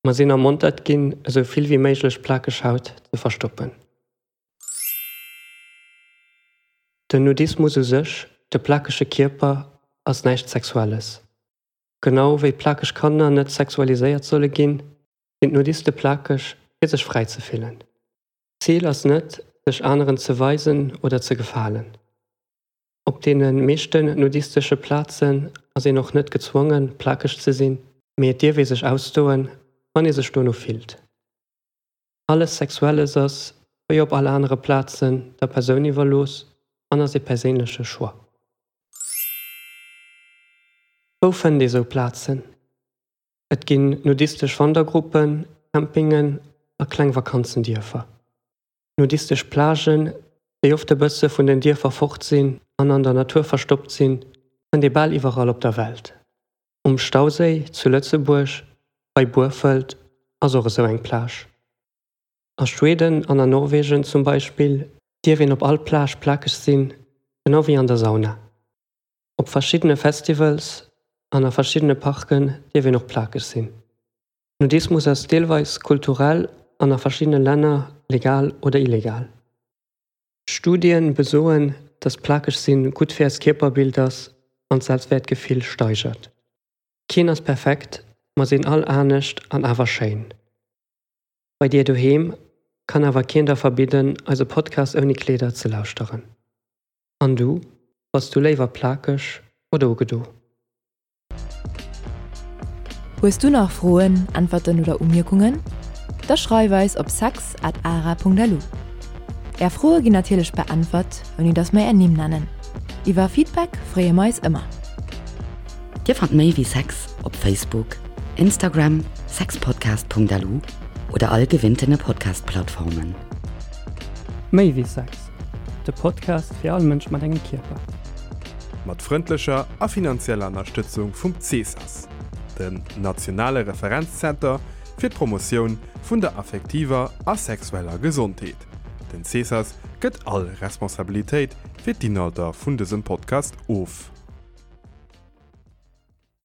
Mer sinn ermontert ginn, esou vill wéi méiglech plakeg Haut ze verstoppen. Den Nudismus u sech, de plakege Kierper, ass näischt Sexuelles. Genau wéi plakeg Kanner net sexualiséiert solle ginn, sinn d'Nudiste plakeg, fir sech fräi ze fillen. D'Zil ass net, sech aneren ze weisen oder ze gefalen. Op deene meeschten nudistesche Plazen ass een och net gezwongen, plakeg ze sinn, mee et dierf ee sech ausdoen, wann ee sech dono fillt. Alles Sexuelles ass, wéi op all anere Plazen, der Persoun iwwerlooss an ass ee perséinleche Choix. Wou fënnt ee sou Plazen? Et ginn nudistesch Wandergruppen, Campingen a kleng Vakanzendierfer. Nudistesch Plagen, déi oft e bësse vun den Dierfer fort sinn an an der Natur verstoppt sinn, fënnt ee bal iwwerall op der Welt. Um Stauséi zu Lëtzebuerg, bei Burfelt, ass och esou eng Plage. A Schweden an a Norwegen zum Beispill dierf een op all Plage plakeg sinn, genau wéi an der Sauna. Op verschiddene Festivals an a verschiddene Parken dierf een och plakeg sinn. Nudismus ass deelweis kulturell an a verschiddene Länner legal oder illegal. Studien besoen, dass plakeg sinn gutt fir eist Kierperbild ass an d'Selbstwäertgefill steigert. Keen ass perfekt, mer sinn all anescht an awer schéin. Bei dir doheem kann awer keen der verbidden eise Podcast ouni Kleeder ze lauschteren. An du, bass du léiwer plakeg oder ugedo? Hues du nach Froen, Äntwerten oder Umierkungen? Da schreif eis op sex at ara.lu. Är Froe ginn natierlech beäntwert, ouni dass mer är Nimm nennen. Iwwer Feedback freeë mer eis ëmmer. Dir fannt méi wéi Sex op Facebook, Instagram, sexpodcast.lu oder all gewinntene Podcast-Plattformen. Méi wéi Sex, de Podcast fir all Mënsch mat engem Kierper. Mat frëndlecher a finanzieller Ënnerstëtzung vum CESAS, dem nationale Referenzzenter fir d'Promotioun vun der affektiver a sexueller Gesondheet. Den CESAS gëtt all Responsabilitéit fir d'Inhalter vun dësem Podcast of.